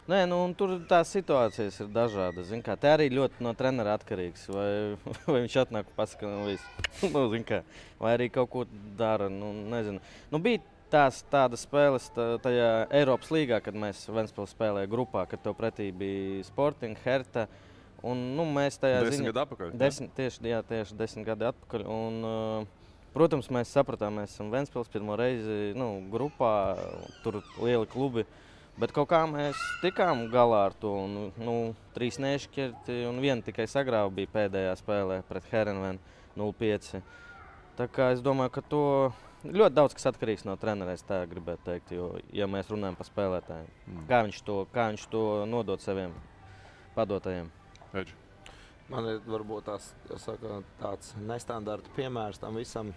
Nē, tur tās situācijas ir dažādas. Te arī ļoti no trenera atkarīgs. Vai viņš atnāk un pasaka, vai arī kaut ko dara, nezinu. Bija tādas spēles tajā Eiropas līgā, kad mēs Ventspils spēlēja grupā, kad tev pretī bija Sporting, Herta. Un, mēs tajā 10 gadu atpakaļ? Tieši 10 gadi atpakaļ. Un, protams, mēs sapratām, mēs esam Ventspils pirmo reizi grupā, tur lieli klubi. Bet kaut kā mēs tikām galā ar to. 3 nešķirti un 1 tikai sagrāva bija pēdējā spēlē pret Herenvenu 0-5. Tā kā es domāju, ka to ļoti daudz kas atkarīgs no trenera, es tā gribētu teikt. Jo, ja mēs runājam par spēlētājiem, kā viņš to nodod saviem padotajiem. Edži. Man ir varbūt tāds nestandarta piemērs tam visam.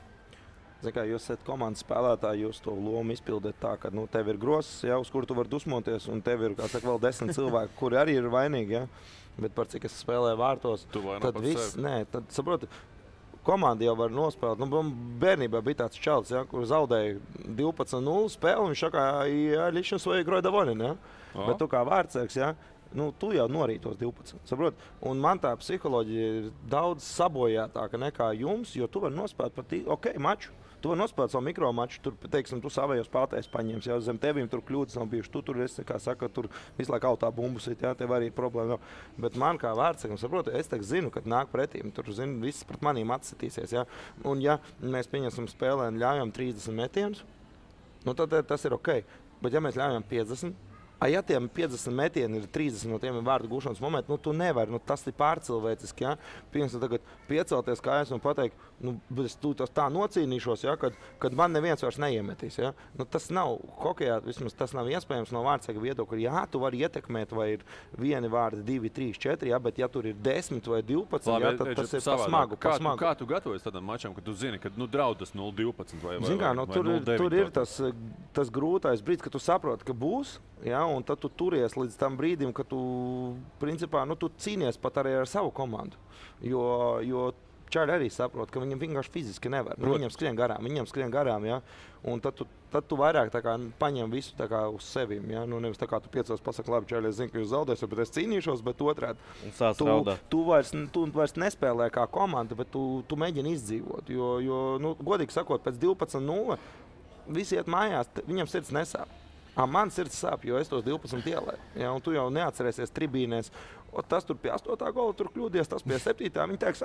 Jūs esat komandas spēlētāji, jūs to lomu izpildat tā, ka tev ir grozs, uz kuru tu vari dusmoties, un tev ir vēl 10 cilvēki, kuri arī ir vainīgi. Ja? Bet par cik es spēlēju vārtos, tad viss, tad saproti, komanda jau var nospēlēt. Bērnībā bija tāds čalis, kur zaudēja 12-0 spēli, un viņš saka, lišana svoja igroja davolina. Ja? Bet tu kā vārdsēks, ja? Tu jau norītos 12. Saprot? Un man tā psiholoģija ir daudz sabojātāka nekā jums, jo tu vari nospēlēt pat maču. Tu vari nospēlēt savu mikromaču, tur, teiksim, tu savējos spēlētājus paņems, jau zem tevīm tur kļūdas nav bijušas. Tu tur esi, kā saka, tur visu laiku autā bumbus, jā, tev arī problēma nav. Bet man kā vārdsakam, saprotu, es zinu, kad nāk pretīm, tur zinu, viss pret manīm atsitīsies, jā. Un ja mēs pieņemsim spēlē un ļaujam 30 metienus, tad tas ir ok. Bet ja mēs ļaujam 50, Ja tiem 50 metieni ir 30 no tiem ir vārdu gūšanas momenti, tu nevari, tas ir pārcilvēciski, Piemēram, tagad piecelties kājās un pateikt, es tā nocīnīšos, kad man neviens vairs neiemetīs, tas nav hokejā, vismaz tas nav iespējams no vārdsarga viedokļa, tu vari ietekmēt, vai ir vieni vārdi, 2, 3, 4, bet ja tur ir 10 vai 12, tad tas ir smagu. Kā tu gatavojies tādam mačam, kad tu zini, ka draudas 0-12 vai 0-9? Tur ir tas grūtais brīdis, ka tu saproti, ka būs, un tad tu turies līdz tam brīdim, ka tu, principā, tu cīnies pat arī ar savu komandu. Jo čaļi arī saprot, ka viņam vienkārši fiziski nevar. Viņam skrien garām, un tad tu vairāk tā kā paņem visu tā kā uz sevim. Nevis tā kā tu piecos pasaki, labi, čaļi, es zinu, ka jūs zaudēsiet, bet es cīnīšos, bet otrādi. Tu vairs nespēlē kā komanda, bet tu mēģini izdzīvot. Jo godīgi sakot, pēc 12-0 visi iet mājās, viņam sirds nesāp. Man sirds sāp, jo es tos 12 ielēju. Un tu jau neatcerēsies tribīnēs. Tas tur pie 8. gola tur kļūdies, tas pie 7. Viņi teiks,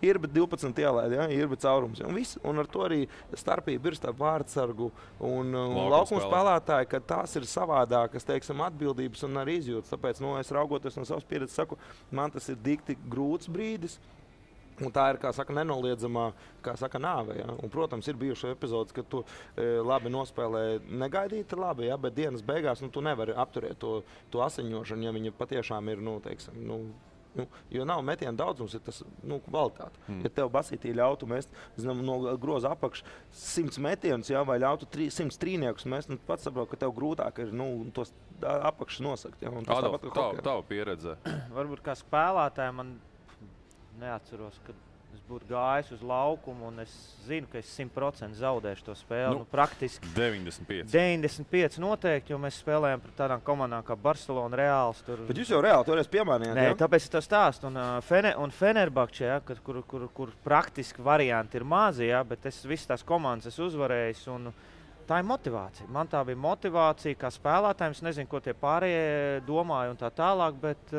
ir bet 12 ielēja, ir bet caurums. Un ar to arī starpība ir starp vārdsargu un laukuma spēlētāju, ka tās ir savādākas, teiksim, atbildības un arī izjūtas. Tāpēc, es raugoties no savas pieredzes, saku, man tas ir dikti grūts brīdis. Un tā ir, kā saka, nenoliedzamā, nāve. Un, protams, ir bijušas epizodes, kad tu labi nospēlē negaidīti labi, bet dienas beigās tu nevari apturēt to asiņošanu, ja viņa patiešām ir, jo nav metienu daudzums, ir tas kvalitāte. Ja tev basītī ļautu mest no groza apakš 100 metienus, vai ļautu 100 trīniekus mest, pats saprot, ka tev grūtāk ir tos apakšus nosakt. Adolf, tava pieredze? Varbūt kā spēlētāji man neatceros, kad es būtu gājis uz laukumu un es zinu, ka es 100% zaudēšu to spēli. Praktiski 95 noteikti, jo mēs spēlējam par tādām komandām kā Barcelona, Reāls. Bet jūs jau Reāli toreiz piemānījāt? Nē, tāpēc es to stāstu. Un Fenerbahče, kur praktiski varianti ir mazi, bet es visas tās komandas esmu uzvarējis. Tā ir motivācija. Man tā bija motivācija kā spēlētājiem. Es nezinu, ko tie pārējie domāja un tā tālāk, bet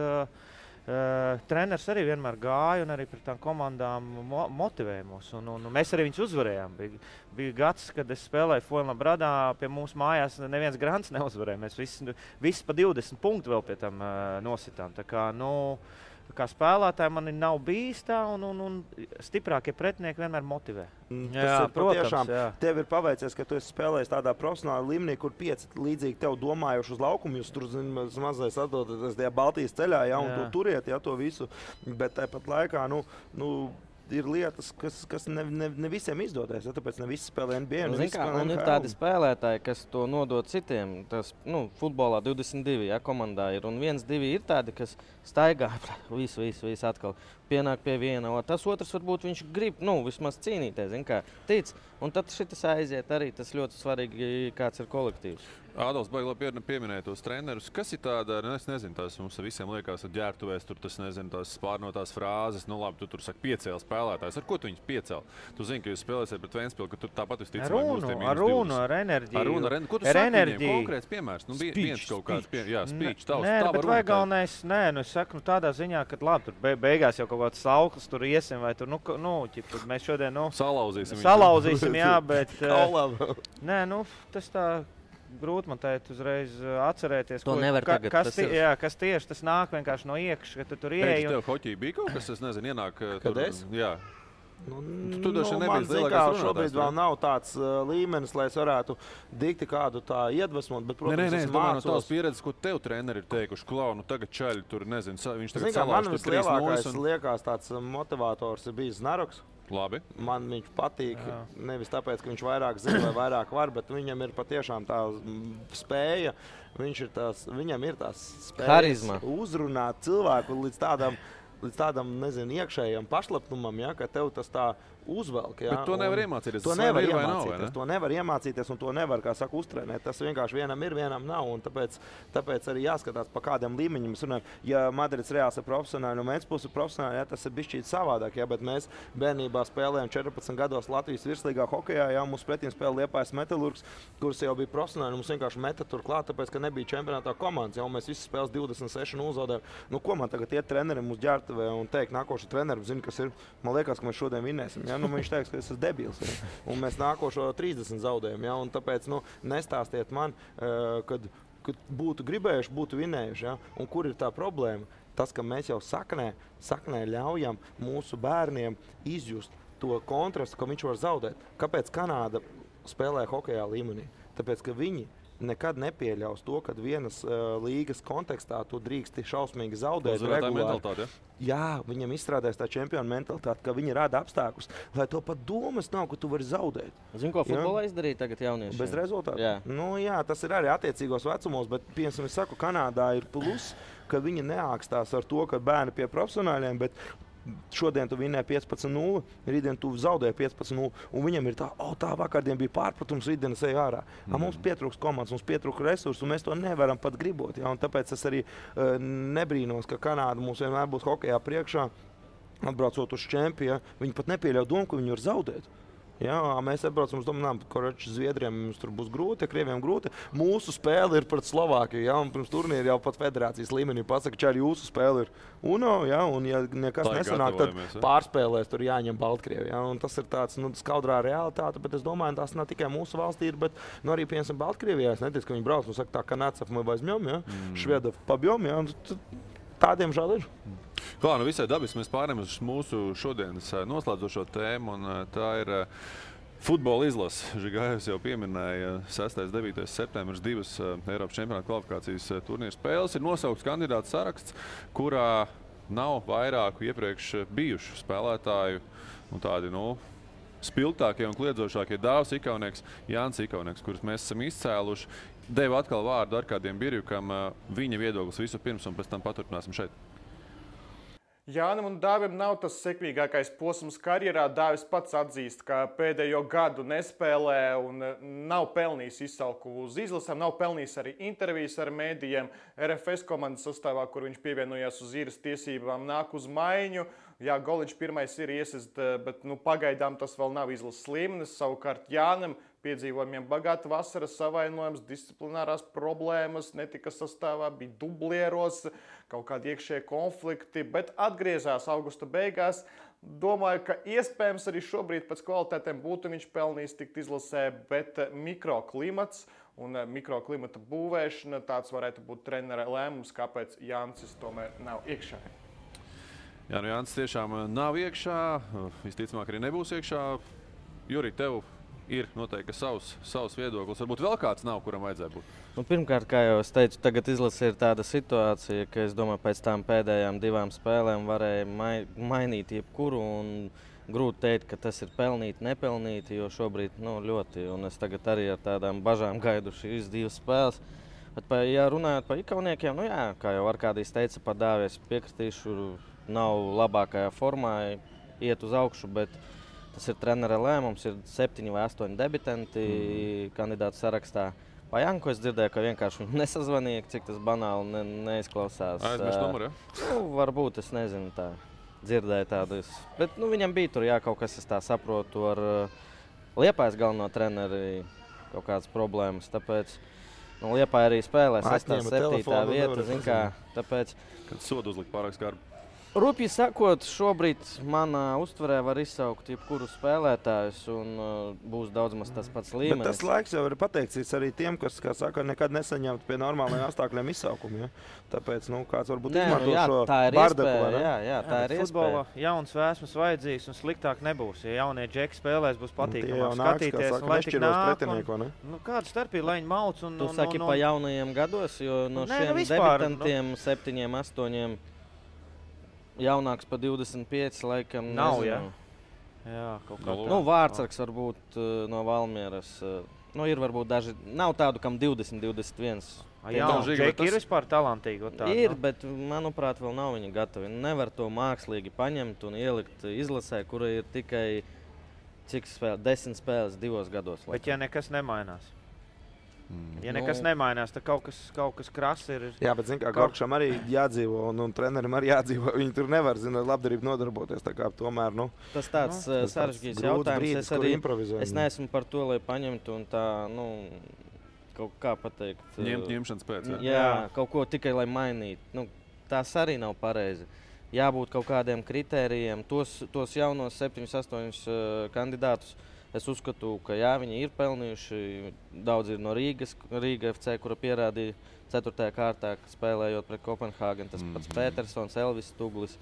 treneris arī vienmēr gāja un arī par tām komandām motivēja mūs. Un mēs arī viņus uzvarējām. Bija gads, kad es spēlēju Fuenlabradā, pie mums mājās neviens grants neuzvarēja. Mēs visi pa 20 punktu vēl pie tam nositām. Tā kā spēlētāji man nav bijis tā, un stiprākie pretinieki vienmēr motivē. Protams, tev ir paveicies, ka tu esi spēlējis tādā profesionālā līmenī, kur 5 līdzīgi tev domājuši uz laukumu. Jūs tur mazais atdodaties tajā Baltijas ceļā, un tu turiet to visu. Bet tāpat laikā, ir lietas, kas ne visiem izdodas. Tāpēc ne visi spēlē NBA. Un ir tādi spēlētāji, kas to nodod citiem. Tas, futbolā 22 komandā ir. Un 1-2 ir tādi, kas staigā visu atkal. Pienāk pie viena. Tas otrs varbūt viņš grib vismaz cīnīties. Tic. Un tad šitas aiziet arī. Tas ļoti svarīgi, kāds ir kolektīvs. Ādals, baigi labi pieminēja tos trenerus. Kas ir tāda, es nezinu, tās mums visiem liekas, ka ģērbtuvēs tur tas, nezinu, tās spārnotās frāzes, labi, tu tur saki piecēl spēlētājs. Ar ko tu viņus piecēl? Tu zini, ka jūs spēlēsiet pret Ventspili, ka tur tāpat visticamāk ar runu, ar enerģiju. Ko tu saki viņiem? Konkrēts piemērs? Viens kaut kāds speech, tavs. Nē, bet vai galvenais, es saku tādā ziņā, ka labi, tur beigās jau kaut kāds sauklis tur iesim, vai tur, mēs šodien, salauzīsim, jā, bet, nē, tas tā. Grūti man teikt uzreiz atcerēties, kas tieši tas nāk vienkārši no iekšas, ka tu tur ieej. Tev hoķī bija kaut kas, es nezinu, ienāk tur. Kad es? Jā. Tu man zin, kā šobrīd vēl nav tāds līmenis, lai es varētu dikti kādu tā iedvesmot, bet, protams, es domāju, no tās pieredzes, ko tev treneri ir teikuši, tagad čaļi tur, nezinu, viņš tagad salauž tur 3 nojas. Man liekas tāds motivators ir bijis Znaroks. Labi. Man viņš patīk, nevis tāpēc, ka viņš vairāk zina vai vairāk var, bet viņam ir patiešām tā spēja, viņam ir tās spējas uzrunāt cilvēku līdz tādam, nezinu, iekšējam pašlepnumam, ka tev tas tā uzvelk. Bet to nevar iemācīties. To nevar iemācīties un to nevar, kā saka, uztrenēt. Tas vienkārši vienam ir, vienam nav. Un tāpēc arī jāskatās, pa kādiem līmeņiem mēs runājam. Ja Madrids Reāls ir profesionāli un Ventspils ir profesionāli, tas ir bišķīt savādāk. Bet mēs bērnībā spēlējām 14 gados Latvijas virslīgā hokejā. Mums pretīm spēlē Liepājas Metalurgs, kurš jau bija profesionāli. Mums vienkārši meta tur klāt, tāpēc, ka nebija čempionātā komandas. Mēs visi spēles 26 zaudējām. Ko man tagad iet trenerim uz ģērbtuvē un teikt, nākošais treneris zina, kas ir? Man liekas, ka mēs šodien vinēsim. Viņš teiks, ka es esmu debils. Un mēs nākošo 30 zaudējam. Un tāpēc nestāstiet man, kad būtu gribējuši, būtu vinējuši. Ja? Un kur ir tā problēma? Tas, ka mēs jau saknē ļaujam mūsu bērniem izjust to kontrastu, ka viņš var zaudēt. Kāpēc Kanāda spēlē hokejā līmenī? Tāpēc, ka viņi nekad nepieļaus to, ka vienas līgas kontekstā tu drīksti šausmīgi zaudēt. Mentalitāte, Jā, viņam izstrādājas tā čempiona mentalitāte, ka viņi rada apstākļus, lai to pat domas nav, ka tu vari zaudēt. Zini, ko futbolā izdarīja tagad jaunieši? Bez rezultātu? Jā. Nu, jā, tas ir arī attiecīgos vecumos, bet, piemēram, es saku, Kanādā ir plus, ka viņi neākstās ar to, ka bērni pie profesionāļiem, bet šodien tu vinnēji 15-0, rītdien tu zaudēji 15-0, un viņam ir tā vakardien bija pārpratums, rītdien es eju ārā. Mums pietrūks komandas, mums pietrūks resursu, un mēs to nevaram pat gribot. Ja? Un tāpēc es arī nebrīnos, ka Kanāda mums vienmēr būs hokejā priekšā, atbraucot uz čempionu, viņi pat nepieļauj domu, ka viņi var zaudēt. Jā, mēs atbraucam uz domām, ka Zviedriem mums tur būs grūti, Krieviem grūti. Mūsu spēle ir pret Slovākiju, ja, un pirms turnīra jau pat federācijas līmenī pasaka, ka arī jūsu spēle ir UNO, ja, un ja nekas nesanāk, tad pārspēlēs tur jāņem Baltkrievi. Ja, un tas ir tāds skaudrā realitāte, bet es domāju, tas nav tikai mūsu valstī, bet arī, piemēram, Baltkrievijā. Es neticu, ka viņi brauc, saka, tā, Kanācaf мы возьмем, ja, Švedov побьем, ja, un tādiem žēl ir. Klā, visai dabiski mēs pārējām uz mūsu šodienas noslēdzošo tēmu, un tā ir futbola izlase. Žigājus jau pieminēja 6. un 9. septembris 2 Eiropas čempionāta kvalifikācijas turnīra spēles. Ir nosaukts kandidātu saraksts, kurā nav vairāku iepriekš bijušu spēlētāju, tādi, spilgtākie un kliedzošākie Dāvs Ikaunieks, Jānis Ikaunieks, kurus mēs esam izcēluši. Devu atkal vārdu Arkādiem Birjukam, viņa viedoklis visu pirms, un pēc tam paturpināsim šeit. Jānim un Dāvim nav tas sekmīgākais posms karjerā. Dāvis pats atzīst, ka pēdējo gadu nespēlē un nav pelnījis izsalku uz izlasēm, nav pelnījis arī intervijas ar mēdījiem. RFS komandas sastāvā, kur viņš pievienojās uz īres tiesībām, nāk uz maiņu. Jā, Goliņš pirmais ir iesist, bet pagaidām tas vēl nav izlases līmenis. Savukārt Jānim piedzīvojumiem bagāta vasara, savainojums, disciplinārās problēmas, netika sastāvā, bija dublieros, kaut kādi iekšēji konflikti, bet atgriezās augusta beigās. Domāju, ka iespējams arī šobrīd pēc kvalitātēm būtu viņš pelnījis tikt izlasē, bet mikroklimats un mikroklimata būvēšana, tāds varētu būt trenera lēmums, kāpēc Jānis tomēr nav iekšā. Jā, Jānis tiešām nav iekšā, visticamāk arī nebūs iekšā. Juri, tev ir noteikti savs viedoklis. Varbūt vēl kāds nav, kuram vajadzēja būt? Pirmkārt, kā jau es teicu, tagad izlase ir tāda situācija, ka es domāju, pēc tām pēdējām 2 spēlēm varēja mainīt jebkuru. Un grūti teikt, ka tas ir pelnīti, nepelnīti, jo šobrīd ļoti. Un es tagad arī ar tādām bažām gaidu šīs 2 spēles. Bet, ja runājot par Ikauniekiem, kā jau Arkādijs teica, par Dāvi es piekritīšu, nav labākajā formā, iet uz augšu, bet tas ir trenera lēmums, ir 7 vai 8 debitanti kandidātu sarakstā. Pa Janku es dzirdēju, ka vienkārši viņu nesazvanīja, cik tas banāli neizklausās. Aizmirst numuru, ja? Varbūt, es nezinu, tā dzirdēju tādus. Bet viņam bija tur, kaut kas, es tā saprotu, ar Liepājas galveno treneri kaut kādas problēmas. Tāpēc Liepāja arī spēlē 6. 7. vieta, tāpēc... Kad sodu uzlikt pārāk skarbi. Rupji sakot, šobrīd manā uztverē var izsaukt jebkuru spēlētājus un būs daudz maz tas pats līmenis. Bet tas laiks jau ir pateikts arī tiem, kas, kā saka, nekad nesaņemt pie normālajiem apstākļiem izsaukumu. Ja? Tāpēc, kāds varbūt izmanto šo bardaku. Jā, tā ir futbolā jauns vēsmas vajadzīgs un sliktāk nebūs. Ja jaunie džeki spēlēs, būs patīkamāk skatīties. Un lai tik nāk, kāda starpība, lai viņi mauc un... Tu saki pa jaunajiem gados, jo no šiem debitantiem 7, 8... Jaunāks pa 25, laikam nav, nezinu. Jā, kaut kā tā. Vārtsargs varbūt no Valmieras. Ir varbūt daži, nav tādu, kam 20, 21. Jā, Džeki ir vispār talantīgi. Ir, bet, manuprāt, vēl nav viņi gatavi. Nevar to mākslīgi paņemt un ielikt izlasē, kura ir tikai, 10 spēles 2 gados. Bet ja nekas nemainās? Ja nekas nemainās, tad kaut kas krass ir. Jā, bet zin kā, Gorkšam arī jādzīvo un trenerim arī jādzīvo. Viņi tur nevar, labdarību nodarboties. Tā kā tomēr, tas tāds sarežģīts jautājums. Es neesmu par to, lai paņemtu un tā, kaut kā pateikt. Ņemšanas pēc, jā, kaut ko tikai, lai mainītu. Tas arī nav pareizi. Jābūt kaut kādiem kritērijiem. Tos jaunos 7, 8 kandidātus Es uzskatu, ka jā, viņi ir pelnījuši. Daudz ir no Rīgas, Rīga FC, kura pierādīja 4. kārtā, spēlējot pret Kopenhāgenu. Tas pats Petersons, Elvis Tuglis,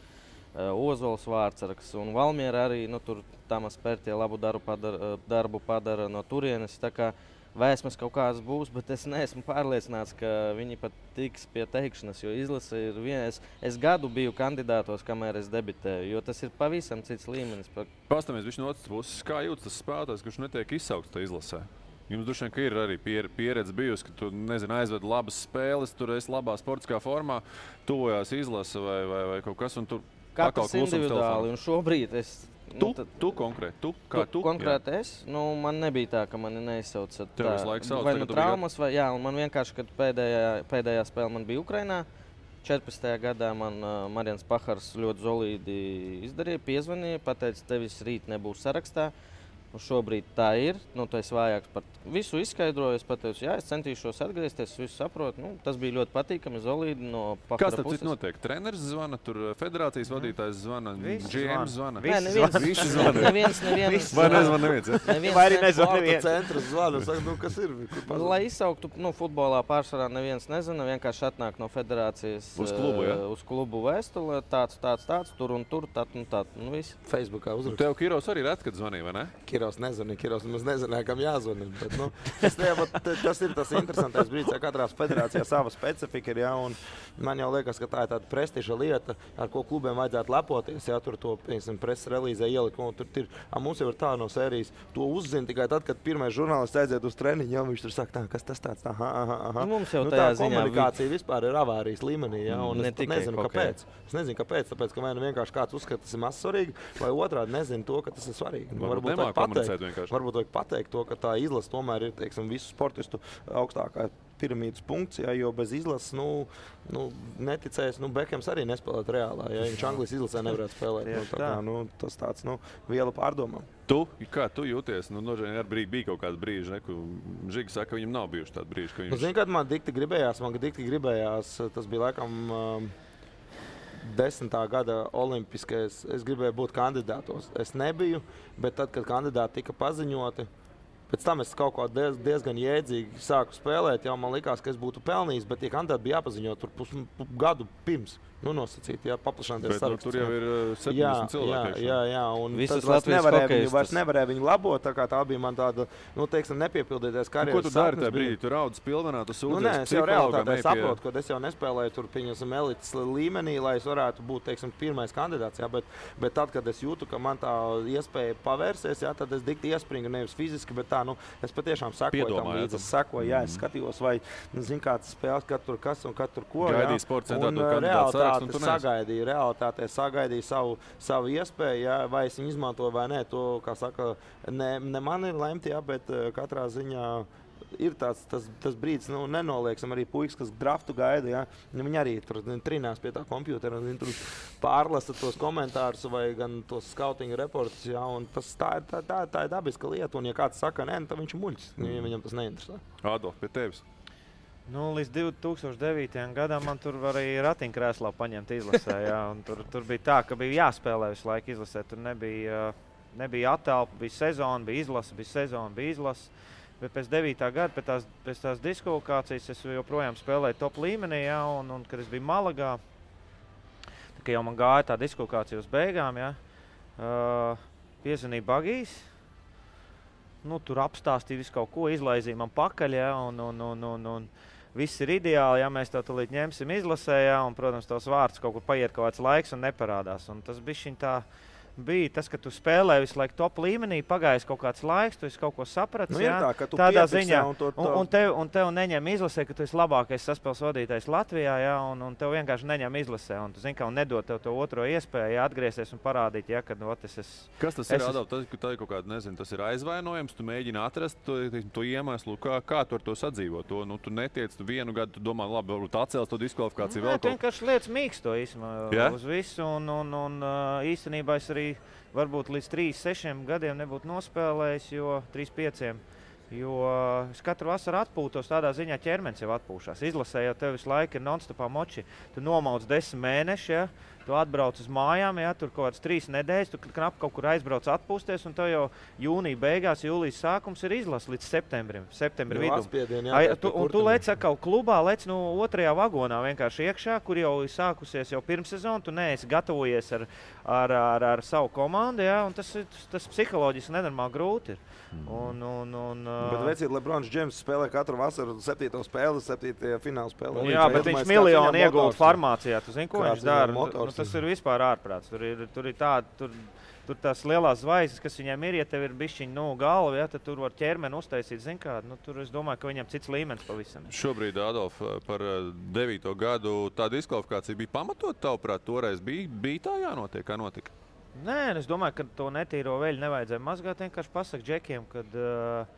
Ozols Vārtsargs un Valmiera arī. Tur Tamas Pērtie labu darbu padara no turienes. Tā kā vēsmas kaut kādas būs, bet es neesmu pārliecināts, ka viņi pat tiks pie teikšanas, jo izlase ir viens. Es gadu biju kandidātos, kamēr es debitēju, jo tas ir pavisam cits līmenis. Pastāmies viņš no otras puses, kā jūtas tas spēlētājs, kurš netiek izsaukts tā izlasē? Jums droši vien, ka ir arī pieredze bijusi, ka tu, aizved labas spēles, tur esi labā sportiskā formā, tuvojās izlase vai kaut kas, un tur katrs individuāli, un šobrīd es... Tu konkrēti? Konkrēti es? Man nebija tā, ka mani neizsauca. Tev visu laiku sauc? Vai nu traumas, vai jā, un man vienkārši, kad pēdējā spēle man bija Ukrainā, 14. gadā man Marians Pahars ļoti solīdi izdarīja, piezvanīja, pateica, tevis rīt nebūs sarakstā. Šobrīd tā ir, tu esi vājāks par visu izskaidroju. Es pateicu, jā, es centīšos atgriezties, visu saprotu. Tas bija ļoti patīkami, solīdi no Pahara puses. Kas tad cits notiek? Treneris zvana, tur federācijas vadītājs zvana, GM zvana? Visi zvana. Neviens. Vai nezvan neviens? Vai arī nezvan neviens? Centrs zvana, saka, kas ir? Lai izsauktu, futbolā pārsvarā neviens nezina, vienkārši atnāk no federācijas uz klubu vēstule, tāds, tur un tur, tad un tad. Facebookā uzrakst. Tev Kiros arī ret, kad zvanīja, vai ne? Kiros nezināja, kam jāzvanī. Tas ir tas interesantais brīdis, ja katrā federācijā sava specifika ir. Ja, man jau liekas, ka tā ir tāda prestiža lieta, ar ko klubiem vajadzētu lepoties. Ja, tur to preses relīzē ielikt. Mums jau ir tā no sērijas. To uzzina tikai tad, kad pirmais žurnālists aiziet uz treniņu. Ja, viņš tur saka, kas tas tāds? Mums jau tā komunikācija vispār ir avārijas līmenī. Ja, es nezinu, kāpēc. Es nezinu, kāpēc. Tāpēc, ka vai nu vienkārši kāds uzskata, tas ir maz svarīgi, vai otrādi nezinu to, ka tas ir svarīgi. Varbūt vajag pateikt to, ka tā izlase tomēr ir visu sportistu augstākā piramīdas punkts, ja, jo bez izlases, neticēs, Bekhems arī nespēlēt reālā, ja viņš Anglijas izlasē nevarētu spēlēt. Tas tāds, viela pārdomām. Kā tu jūties? Arī bija kaut kāds brīži, ka Žiga saka, ka viņam nav bijuši tādi brīži. Zini, kad man dikti gribējās, tas bija laikam 10. gada olimpiskais, es gribēju būt kandidātos. Es nebiju, bet tad, kad kandidāti tika paziņoti, pēc tam es kaut ko diezgan jēdzīgi sāku spēlēt, jau man likās, ka es būtu pelnījis, bet tie kandidāti bija jāpaziņo tur gadu pirms. Nosacīt, paplašināties saraksts. Tur jau ir 70 cilvēki. Jā, un visas vairs nevarēja viņu labot, tā bija man tāda, nepiepildīties karjeras. Ko tu dari tajā brīdī? Tu raudz pilvenā, tu sūdzies psihologam? Es jau realitātē saprotu, ka es jau nespēlēju tur elites līmenī, lai es varētu būt, pirmais kandidāts, jā, bet tad, kad es jūtu, ka man tā iespēja pavērsies, jā, tad es dikti iespringu nevis fiziski, bet tā, es patiešām sekoju tam līdzi. Es sekoju, jā, es skatījos, vai, kāds spēles, kad tur kas un kad tur ko, Gaidīja sporta centrā to kandidātu sarakstu. Realitātē sagaidīju savu iespēju, ja, vai es viņu izmantoju vai nē. To, kā saka, ne man ir lemt, ja, bet katrā ziņā ir tas brīdis, nenolieksim arī puikas, kas draftu gaida. Ja, viņi arī tur trinās pie tā kompjutera, viņi tur pārlasa tos komentārus vai gan tos skautinga reportus. Ja, tā ir dabiska lieta, un ja kāds saka, nē, tad viņš ir muļķis, viņam tas neinteresē. Adolf, pie tevis. Līdz 2009. gadam man tur arī ratiņkrēslā paņemt izlasē. Jā, tur bija tā, ka bija jāspēlē visu laiku izlasē. Tur nebija attelpa, bija sezona, bija izlase. Bet pēc 9. gada, pēc tās diskvalifikācijas, es joprojām spēlēju top līmenī. Jā, un kad es biju Malagā, tā, jau man gāja tā diskvalifikācija uz beigām, jā, piezvanīja Bagijs. Tur apstāstīja visu kaut ko, izlaizīja man pakaļ, jā, un viss ir ideāli, ja mēs to tulīt ņemsim izlasē, jā, un, protams, tos vārds kaut kur paiet kaut kāds laiks un neparādās. Un tas bišķiņ tā bija tas, ka tu spēlē visu laiku top līmenī, pagājis kaut kāds laiks, tu esi kaut ko sapratis, jā, tādā ziņā, un tev neņem izlasē, ka tu esi labākais saspēles vadītājs Latvijā, jā, un tev vienkārši neņem izlasē, un tu zini, ka nedod tev to otro iespēju, jā, atgriezties un parādīt, jā, kad es esmu. Kas tas ir, Adolf? Tā ir kaut kāda, nezinu, tas ir aizvainojums, tu mēģini atrast to iemeslu, kā tu ar to sadzīvo. Tu netiec, tu vienu gadu, tu domā, labi, varbūt atcels to diskvalifikāciju vēl kaut. Vienkārši lietas mīksto īstenībā uz visu, un īstenībā es arī varbūt līdz 3-6 gadiem nebūtu nospēlējis, jo 3-5, jo es katru vasaru atpūtos, tādā ziņā ķermenis jau atpūšās. Izlasē jau tev visu laiku ir non-stopā moči. Tu nomauc 10 mēneši, ja? Tu atbrauc uz mājām, jā, tur kaut kāds 3 nedēļas, tu knap kaut kur aizbrauc atpūsties, un tev jau jūnija beigās, jūlijas sākums ir izlases līdz septembra vidum. Un tu lec atkal klubā, lec otrajā vagonā vienkārši iekšā, kur jau sākusies jau pirmsezonu, tu neesi gatavojies ar savu komandu, jā, un tas psiholoģiski nenormāli grūti ir. Bet vecīt, Lebrons Džeims spēlē katru vasaru 7. spēli, 7. fināla spēlē. Jā, bet viņš miljonu iegulda farmācijā. Tu zini, ko viņš dara? Tas ir vispār ārprāts. Tur ir tāda, tur tās lielās zvaigznes, kas viņiem ir, ja tev ir bišķiņ galva, ja, tad tur var ķermeni uztaisīt, zin kā, tur es domāju, ka viņam cits līmenis pavisam. Šobrīd, Adolf, par 9. gadu tā diskvalifikācija bija pamatot, tavuprāt, toreiz bija tā jānotiek, kā notika? Nē, es domāju, ka to netīro veļu nevajadzēja mazgāt. Vienkārši pasaka džekiem, kad...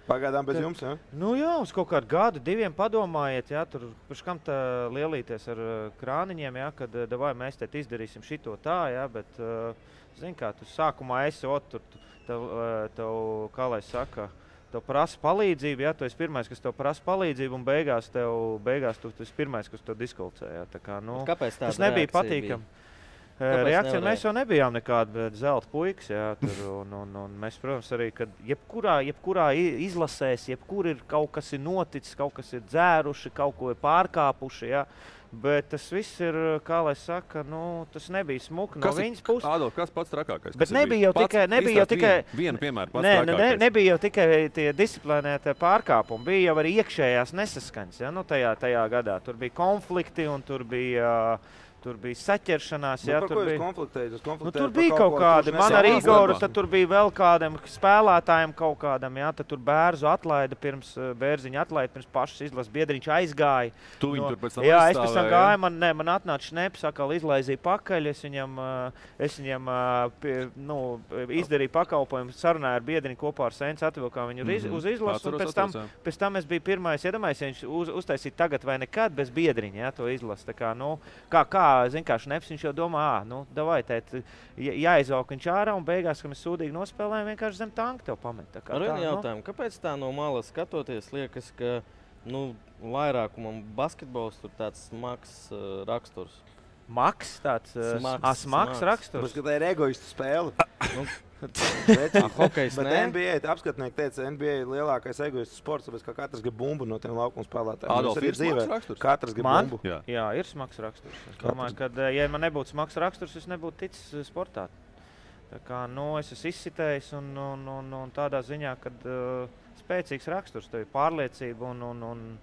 Pagaidām bez jums, jā? Nu jā, uz kaut kādu gadu, 2 padomājiet, jā, tur pirms kam tā lielīties ar krāniņiem, jā, kad davai mēs te izdarīsim šito tā, jā, bet, zin kā, tu sākumā esi tur, tev, kā lai saka, tev prasa palīdzību, jā, tu esi pirmais, kas tev prasa palīdzību, un beigās tu esi pirmais, kas tev diskvalificē, jā, tā kā, nu, tas nebija patīkami. Reakcija mēs jau nebijām nekāda zelta puikas, jā, tur, un mēs, protams, arī, kad jebkurā izlasēs, jebkur ir kaut kas ir noticis, kaut kas ir dzēruši, kaut ko ir pārkāpuši, jā, bet tas viss ir, kā lai saka, nu, tas nebija smuki no viņas puses. Adolf, kas pats trakākais? Bet nebija jau tikai vienu piemēru pats trakākais. Nebija jau tikai tie disciplinētie pārkāpumi, bija jau arī iekšējās nesaskaņas, jā, nu, tajā gadā. Tur bija konflikti un tur bija saķeršanās. Jā, par ko jūs konfliktējat? Tur bija kaut kādi. Man ar Igoru, tad tur bija vēl kādam spēlētājiem kaut kādam. Jā, tad tur Bērziņu atlaida pirms pašas izlases biedriņš aizgāja. Tu viņu tur pēc tam jā, es pēc tam gāju, man atnāca šneps, atkal izlaizīja pakaļ. Es viņam izdarīju pakalpojumu, sarunāju ar biedriņu kopā ar Sēns, atvilkām viņu uz izlasu. Pēc tam es biju pirmais, iedomājies, ja viņš uztaisīja tagad vai nekad bez biedriņa, jā, to izlasu. Tā kā, nu, zin kā šneps, viņš jau domā, davai, tēt, jāizvalk viņš ārā, un beigās, kad mēs sūdīgi nospēlējam, vienkārši zem tanka tev pamet. Ar vienu jautājumu, kāpēc tā no malas skatoties liekas, ka, vairākumam basketbols tur tāds smags raksturs? Maks tāds smags raksturs? Bet tā ir egoistu spēle. Hokejs, bet NBA apskatnieki teica, NBA ir lielākais egoistu sports, tāpēc ka katrs grib bumbu no tiem laukuma spēlētājiem. Adolf, ir smags raksturs? Katrs grib bumbu. Jā, ir smags raksturs. Es domāju, ka, ja man nebūtu smags raksturs, es nebūtu ticis sportā. Tā kā, es esmu izsitējis un tādā ziņā, kad spēcīgs raksturs, tev ir pārliecība un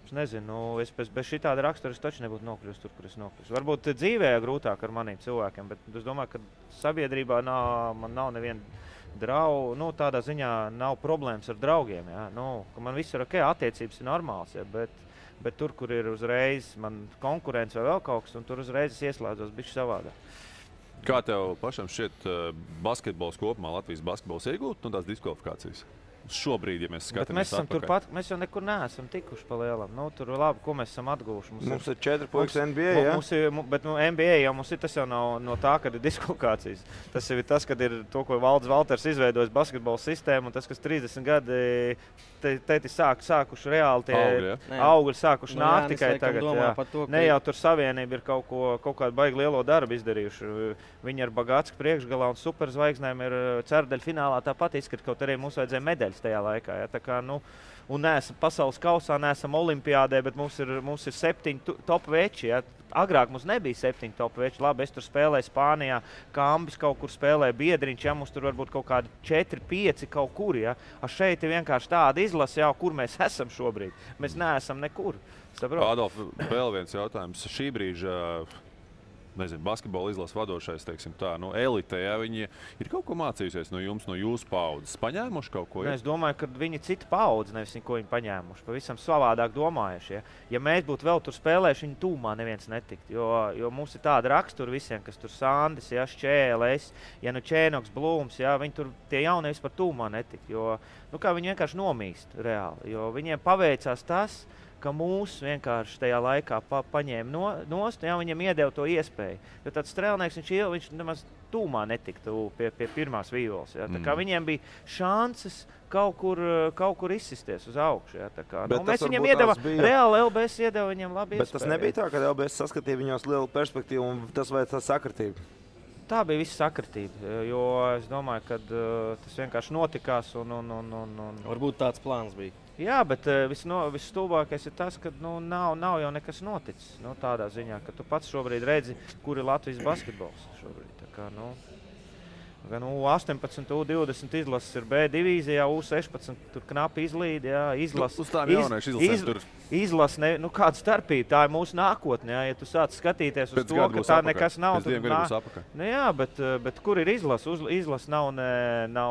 es nezinu, es bez šitāda rakstura es taču nebūtu nokļūst tur, kur es nokļūst. Varbūt dzīvē grūtāk ar maniem cilvēkiem, bet es domāju, ka sabiedrībā man nav neviena draugu, tādā ziņā nav problēmas ar draugiem, jā. Ka man viss ir ok, attiecības ir normāls, jā, bet tur, kur ir uzreiz man konkurence vai vēl kaut kas, un tur uzreiz es ieslēdzos bišķi savādāk. Kā tev pašam šķiet basketbols kopumā, Latvijas basketbols iegūt tās diskvalifikācijas? Šobrīd, ja mēs skatāmies mēs esam turpat, mēs jau nekur neesam tikuši pa lielam. Tur labi, ko mēs esam atguvuši. Mums ir 4 puikas NBA, jā? Bet NBA jau mums ir, tas jau nav no tā, kad ir diskvalifikācijas. Tas jau ir tas, kad ir to, ko Valdis Valters izveidojis basketbola sistēmu, un tas, kas 30 gadi tēti sākuši reāli tie augļi sākuši nākt tikai tagad. Ne jau tur savienība ir kaut kādu baigi lielo darbu izdarījuši. Viņi ar Bagātsku priekšgalā un superzvaigznēm ir ceturdaļu finālā tāpat izskat, kaut arī mums vajadzēja medaļas tajā laikā. Ja? Tā kā, un neesam pasaules kausā, neesam olimpiādē, bet mums ir 7 top veči. Ja? Agrāk mums nebija 7 top veči. Labi, es tur spēlēju Spānijā, Kambis kaut kur spēlēja biedriņš, ja? Mums tur varbūt kaut kādi 4-5 kaut kur. Ja? Šeit ir vienkārši tāda izlase, jau, kur mēs esam šobrīd. Mēs neesam nekur. Adolf, vēl viens jautājums. Šī brīža basketbola izlases vadošais, teiksim tā, elite, ja, viņi ir kaut ko mācījusies no jums, no jūsu paudzes, paņēmuši kaut ko? Es domāju, ka viņi cita paudze, nevis ko viņi paņēmuši, pavisam savādāk domājuši. Ja mēs būtu vēl tur spēlējuši, viņi tūmā neviens netikt, jo mums ir tāda rakstura visiem, kas tur Sandis, ja, Šķēles, ja Čēnoks, Blūms, ja, viņi tur tie jaunie vispār tūmā netikt, jo viņi vienkārši nomīst reāli, jo viņiem paveicās tas, ka mūs vienkārši tajā laikā paņēma nost, jā, viņam iedeva to iespēju. Jo tāds strēlnieks, viņš nemaz tūmā netiktu pie pirmās vīvoles. Jā. Tā kā viņiem bija šances kaut kur izsisties uz augšu. Jā. Tā kā, mēs viņiem iedeva, reāli LBS iedeva viņiem labi iespēju. Bet tas nebija tā, ka LBS saskatīja viņos lielu perspektīvu un tas vai tā sakritība? Tā bija visa sakritība, jo es domāju, ka tas vienkārši notikās un... Varbūt tāds plāns bija. Jā, bet visstulbākais ir tas, ka nav jau nekas noticis. Tādā ziņā, ka tu pats šobrīd redzi, kur ir Latvijas basketbols šobrīd. Tā kā, gan U18, U20 izlases ir B divīzijā, U16 tur knapi izlīd, jā, Uz tām jauniešu izlasēm tur. Izlase, kāda starpība, tā ir mūsu nākotne, jā, ja tu sāc skatīties uz to, ka tā nekas nav. Pēc 2 gadiem būs apakaļ. Jā, bet kur ir izlase? Izlase nav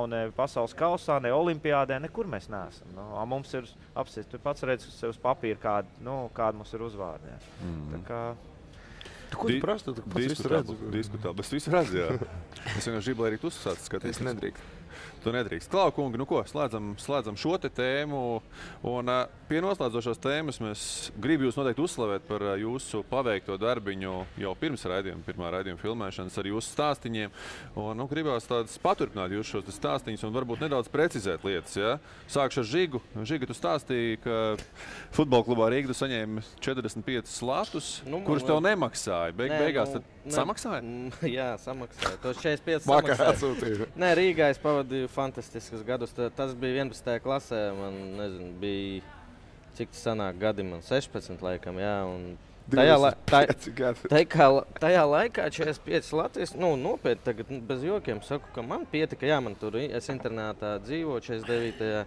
ne pasaules kausā, ne olimpiādē, nekur mēs neesam. Mums ir apsies, tu pats redz sev uz papīra, kāda mums ir uzvārdi. Tā kā... Ko tu prasti? Tu pats visu redzi? Diskutāli, bet visu redzi, jā. Es vienkārši gribu, lai arī tu sāc skatīties. Es nedrīkst. Tu nedrīkst. Klau, kungi, slēdzam šo te tēmu. Un pie noslēdzošās tēmas mēs gribu jūs noteikti uzslavēt par jūsu paveikto darbiņu jau pirms pirmā raidījuma filmēšanas ar jūsu stāstiņiem. Un gribās tādas paturpināt jūs šos stāstiņus un varbūt nedaudz precizēt lietas. Ja? Sākšu ar Žigu. Žiga, tu stāstīji, ka futbola klubā Rīga tu saņēmi 45 slatus, kurus tev nemaksāja. Beigās tad samaksāja? Jā, samaksāja. Tos 45 Vakar samaksāja. atsūtīju. Nē, Rīgā es pavadīju fantastiskus gadus. Tas bija 11. klasē. Man, nezinu, bija, cik tas sanāk gadi, man 16 laikam, jā. Un tajā laikā 45 Latvijas, nopietni tagad bez jokiem saku, ka man pietika, jā, man tur, es internātā dzīvoju 49.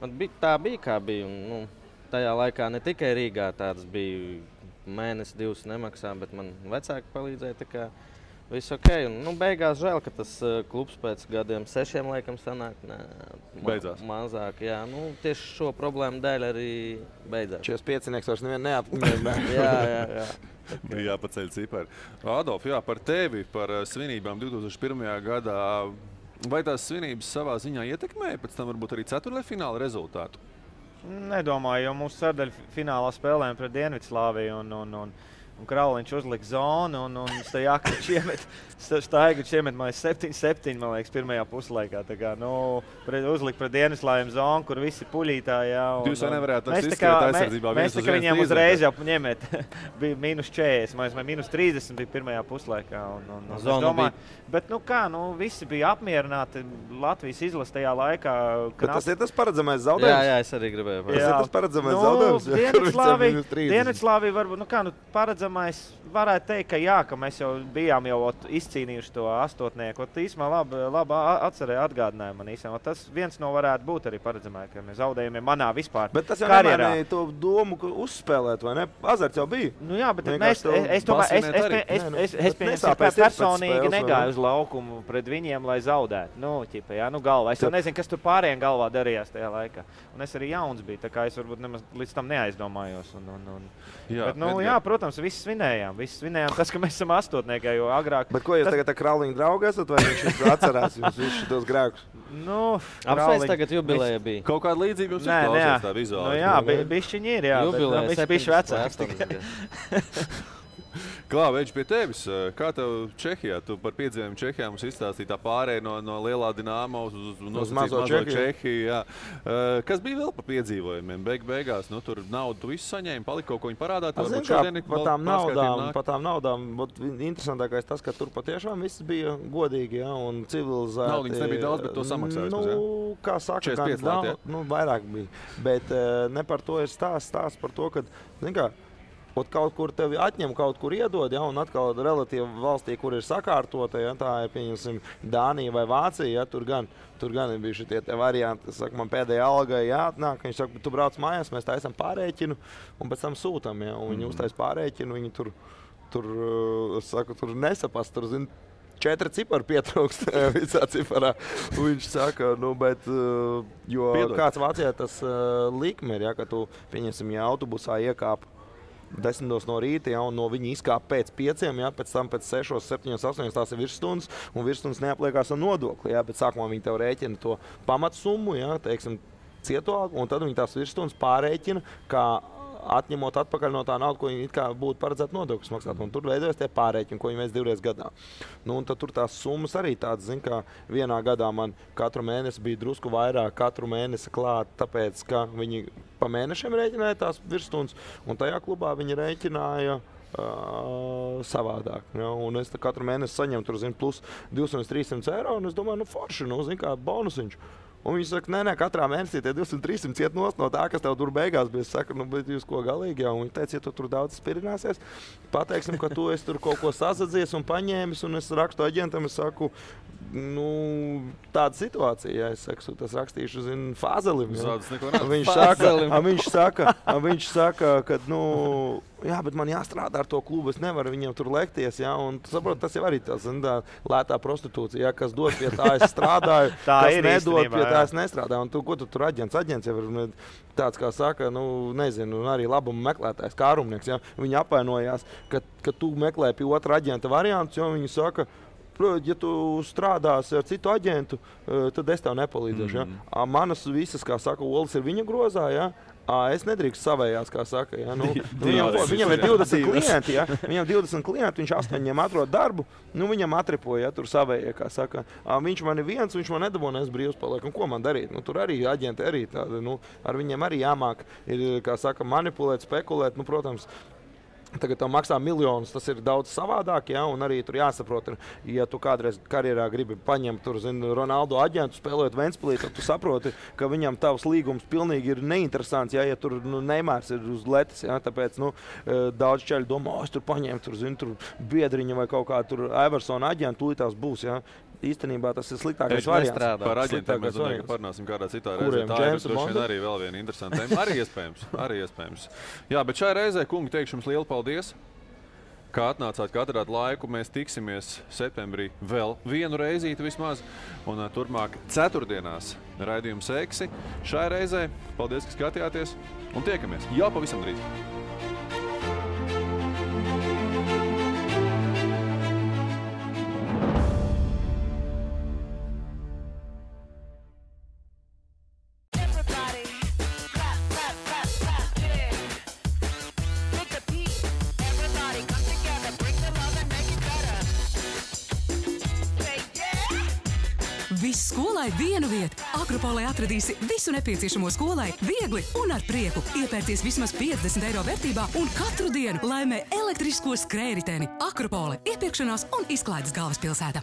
Man tā bija, kā bija. Un, tajā laikā ne tikai Rīgā tāds bija mēnesi, 2 nemaksā, bet man vecāki palīdzēja, tā kā viss ok. Un, beigās žēl, ka tas klubs pēc gadiem 6 laikam sanāk mazāk. Jā, tieši šo problēmu dēļ arī beidzās. 45 vairs nevienu neapmierināja. jā. Bija jāpaceļ cipari. Adolf, jā, par tevi, par svinībām 2001. gadā. Vai tās svinības savā ziņā ietekmēja pēc tam varbūt arī ceturtdaļfināla rezultātu? Nedomāju, jo mūsu ceturtdaļfinālā spēlējām pret Dienvidslāviju un Krauliņš uzlika zonu un Staigačs iemet 7-7, man liekas, pirmajā puslaikā. Tā kā, uzlika pret Dienvidslāviju zonu, kur visi puļītā, jā. Jūs jau nevarētu izskriet aizsardzībā mēs tā kā viņiem uzreiz jau ņemēt. Bija -40, vai -30 bija pirmajā puslaikā. Es domāju, bet visi bija apmierināti Latvijas izlase tajā laikā. Bet tas ir tas paredzamais zaudējums? Jā, es arī gribēju. Tas ir tas paredzamais zaudējums? Dienvidslāvija varbūt, paredzamais varētu teikt, ka jā, ka mēs jau bijām izcīnījuši to astotnieku. Īsumā labi atgādināja man īsumā. Tas viens no varētu būt arī paredzamais, ka mēs zaudējumiem manā vispār karjerā. Bet tas jau nemainīja to domu, ka uzspēlēt, vai ne? Azarts jau bija. Jā, bet es personīgi negāju uz laukumu pret viņiem, lai zaudētu. Galvā. Es jau nezinu, kas tur pārējiem galvā darījās tajā laikā. Un es arī jauns biju, tā kā es varbūt nemaz līdz tam neaizdomājos. Jā, protams, visi svinējām tas, ka mēs esam astotniekā, jo agrāk... Bet ko jūs tagad ar Krauliņu draugu esat, vai viņš atcerās jums visus tos grēkus? Apsveic tagad jubileja bija. Kaut kāda līdzība jums ir klausies tā vizuāli. Jā, bišķiņi ir, jā. Jubileja, bet bišķi vecāks. Klā, Veģi, pie tevis. Kā tev Čehijā? Tu par piedzīvojumu Čehijā mums izstāstīji tā pārēja no lielā Dinamo uz mazo Čehiju. Jā. Kas bija vēl par piedzīvojumiem? Beigās, tur naudu tu visu saņēmi, palika kaut ko viņi parādā. Par tām naudām, interesantākais tas, ka tur patiešām viss bija godīgi, jā, un civilizēti. Naudiņas nebija daudz, bet to samaksājas. Kā saka, 45 lati, jā? Vairāk bija. Bet ne par to ir stāsts par to, ka, kaut kur tevi atņem, kaut kur iedod, ja, un atkal relatīvi valstī, kur ir sakārtota, ja, tā ir, pieņemsim, Dānija vai Vācija, ja, tur gan ir bijuši tie varianti, saka, man pēdējā algai jāatnāk, viņš saka, tu brauc mājās, mēs taisam pārēķinu, un pēc tam sūtam, ja, un viņi uztais pārēķinu, viņi tur nesapast, tur, zin, 4 cipari pietrūkst visā ciparā. Viņš saka, jo kāds Vācijā tas likme ir, ja, ka tu, pieņemsim, ja autobusā iekāp 10 no rīta, ja, un no viņa izkāp pēc 5, ja, pēc tam pēc 6, 7, 8 tās ir virsstundas, un virsstundas neapliekās ar nodokli. Ja, bet sākumā viņi tev rēķina to pamatsummu, ja, teiksim, cieto, un tad viņi tās virsstundas pārēķina kā atņemot atpakaļ no tā naudas, ko viņi it kā būtu paredzēti nodokļus maksāt. Un tur veidojas tie pārreķini, ko viņi veids 2 reizes gadā. Nu, un tad tur tās summas arī tādas, zin, kā vienā gadā man katru mēnesi bija drusku vairāk, katru mēnesi klāt, tāpēc, ka viņi pa mēnešiem rēķināja tās virsstundas, un tajā klubā viņi rēķināja savādāk. Ja? Un es katru mēnesi saņemu tur, zin, plus 200-300 eiro, un es domāju, nu forši, nu, zin, kā bonusiņš. Un viņi saka, nē, katrā mēnesī tie 200-300 iet nost no tā, kas tev tur beigās bija. Es saku, nu, bet jūs ko galīgi jau? Un viņi teica, ja tu tur daudz spirināsies, pateiksim, ka tu esi tur kaut ko sasadzies un paņēmis, un es rakstu aģentam, es saku, nu, tāda situācija, ja es saku, tas rakstīšu, zin, Fāzelim. Ja? Viņš saka, ka, nu, jā, bet man jāstrādā ar to klubu, es nevaru viņiem tur lekties, ja? Un tu saproti, tas jau arī tā, zin, tā lētā prostitūcija, ja? Kas dod pie tā, es strādāju, kas nedod pie tā, es nestrādāju. Un tu, ko tu tur aģents? Aģents jau ir tāds, kā saka, nu, nezinu, arī labumu meklētājs, kārumnieks, ja? Viņi apvainojās, ka tu meklē pie otra aģenta variantus, jo viņi saka, ja tu strādāsi ar citu aģentu, tad es tev nepalīdzēšu. Ja? Manas visas, kā saka, olas ir viņa grozā, ja? Es nedrīkst savējās, kā saka. Ja? Nu, viņam ir 20 klienti, ja? Viņam 20 klienti, viņš 8 atrod darbu, nu, viņam atripoja, ja? Tur savējie, kā saka. Viņš man ir viens, viņš man nedabonēs brīvs paliek. Un ko man darīt? Nu, tur arī aģenti arī tādi, nu, ar viņiem arī jāmāk, ir, kā saka, manipulēt, spekulēt, nu, protams. Tagad tam maksā miljonus, tas ir daudz savādāk, ja? Un arī tur jāsaprot, ja tu kādreiz karjerā gribi paņemt tur, zin, Ronaldo aģentu, spēlēt Ventspilī, tad tu saproti, ka viņam tavs līgums pilnīgi ir neinteresants, ja tur nu, Neimārs ir uz letes, ja? Tāpēc nu, daudz čaļi domā, es tur paņēmu tur, zin, tur biedriņa vai kaut kā tur Eversona aģentu, tūlīt tās būs, ja? Īstenībā tas ir sliktākais variants. Par aģentiem mēs domājam, ka parunāsim kādā citā reizē. Tā ir droši vien arī vēl viena interesanta tēma. Arī iespējams. Jā, bet šai reizē, kungi, teikšu jums lielu paldies, kā atnācāt, ka atradāt laiku. Mēs tiksimies septembrī vēl vienu reizīti vismaz. Un turpmāk ceturtdienās raidījums Eksi. Šai reizē paldies, ka skatījāties un tiekamies jau pavisam drīz. Viss skolai vienu vietu. Akropolē atradīsi visu nepieciešamo skolai viegli un ar prieku. Iepērties vismaz 50 eiro vērtībā un katru dienu laimē elektrisko skrējriteni. Akropole, iepirkšanās un izklaides galvaspilsēta.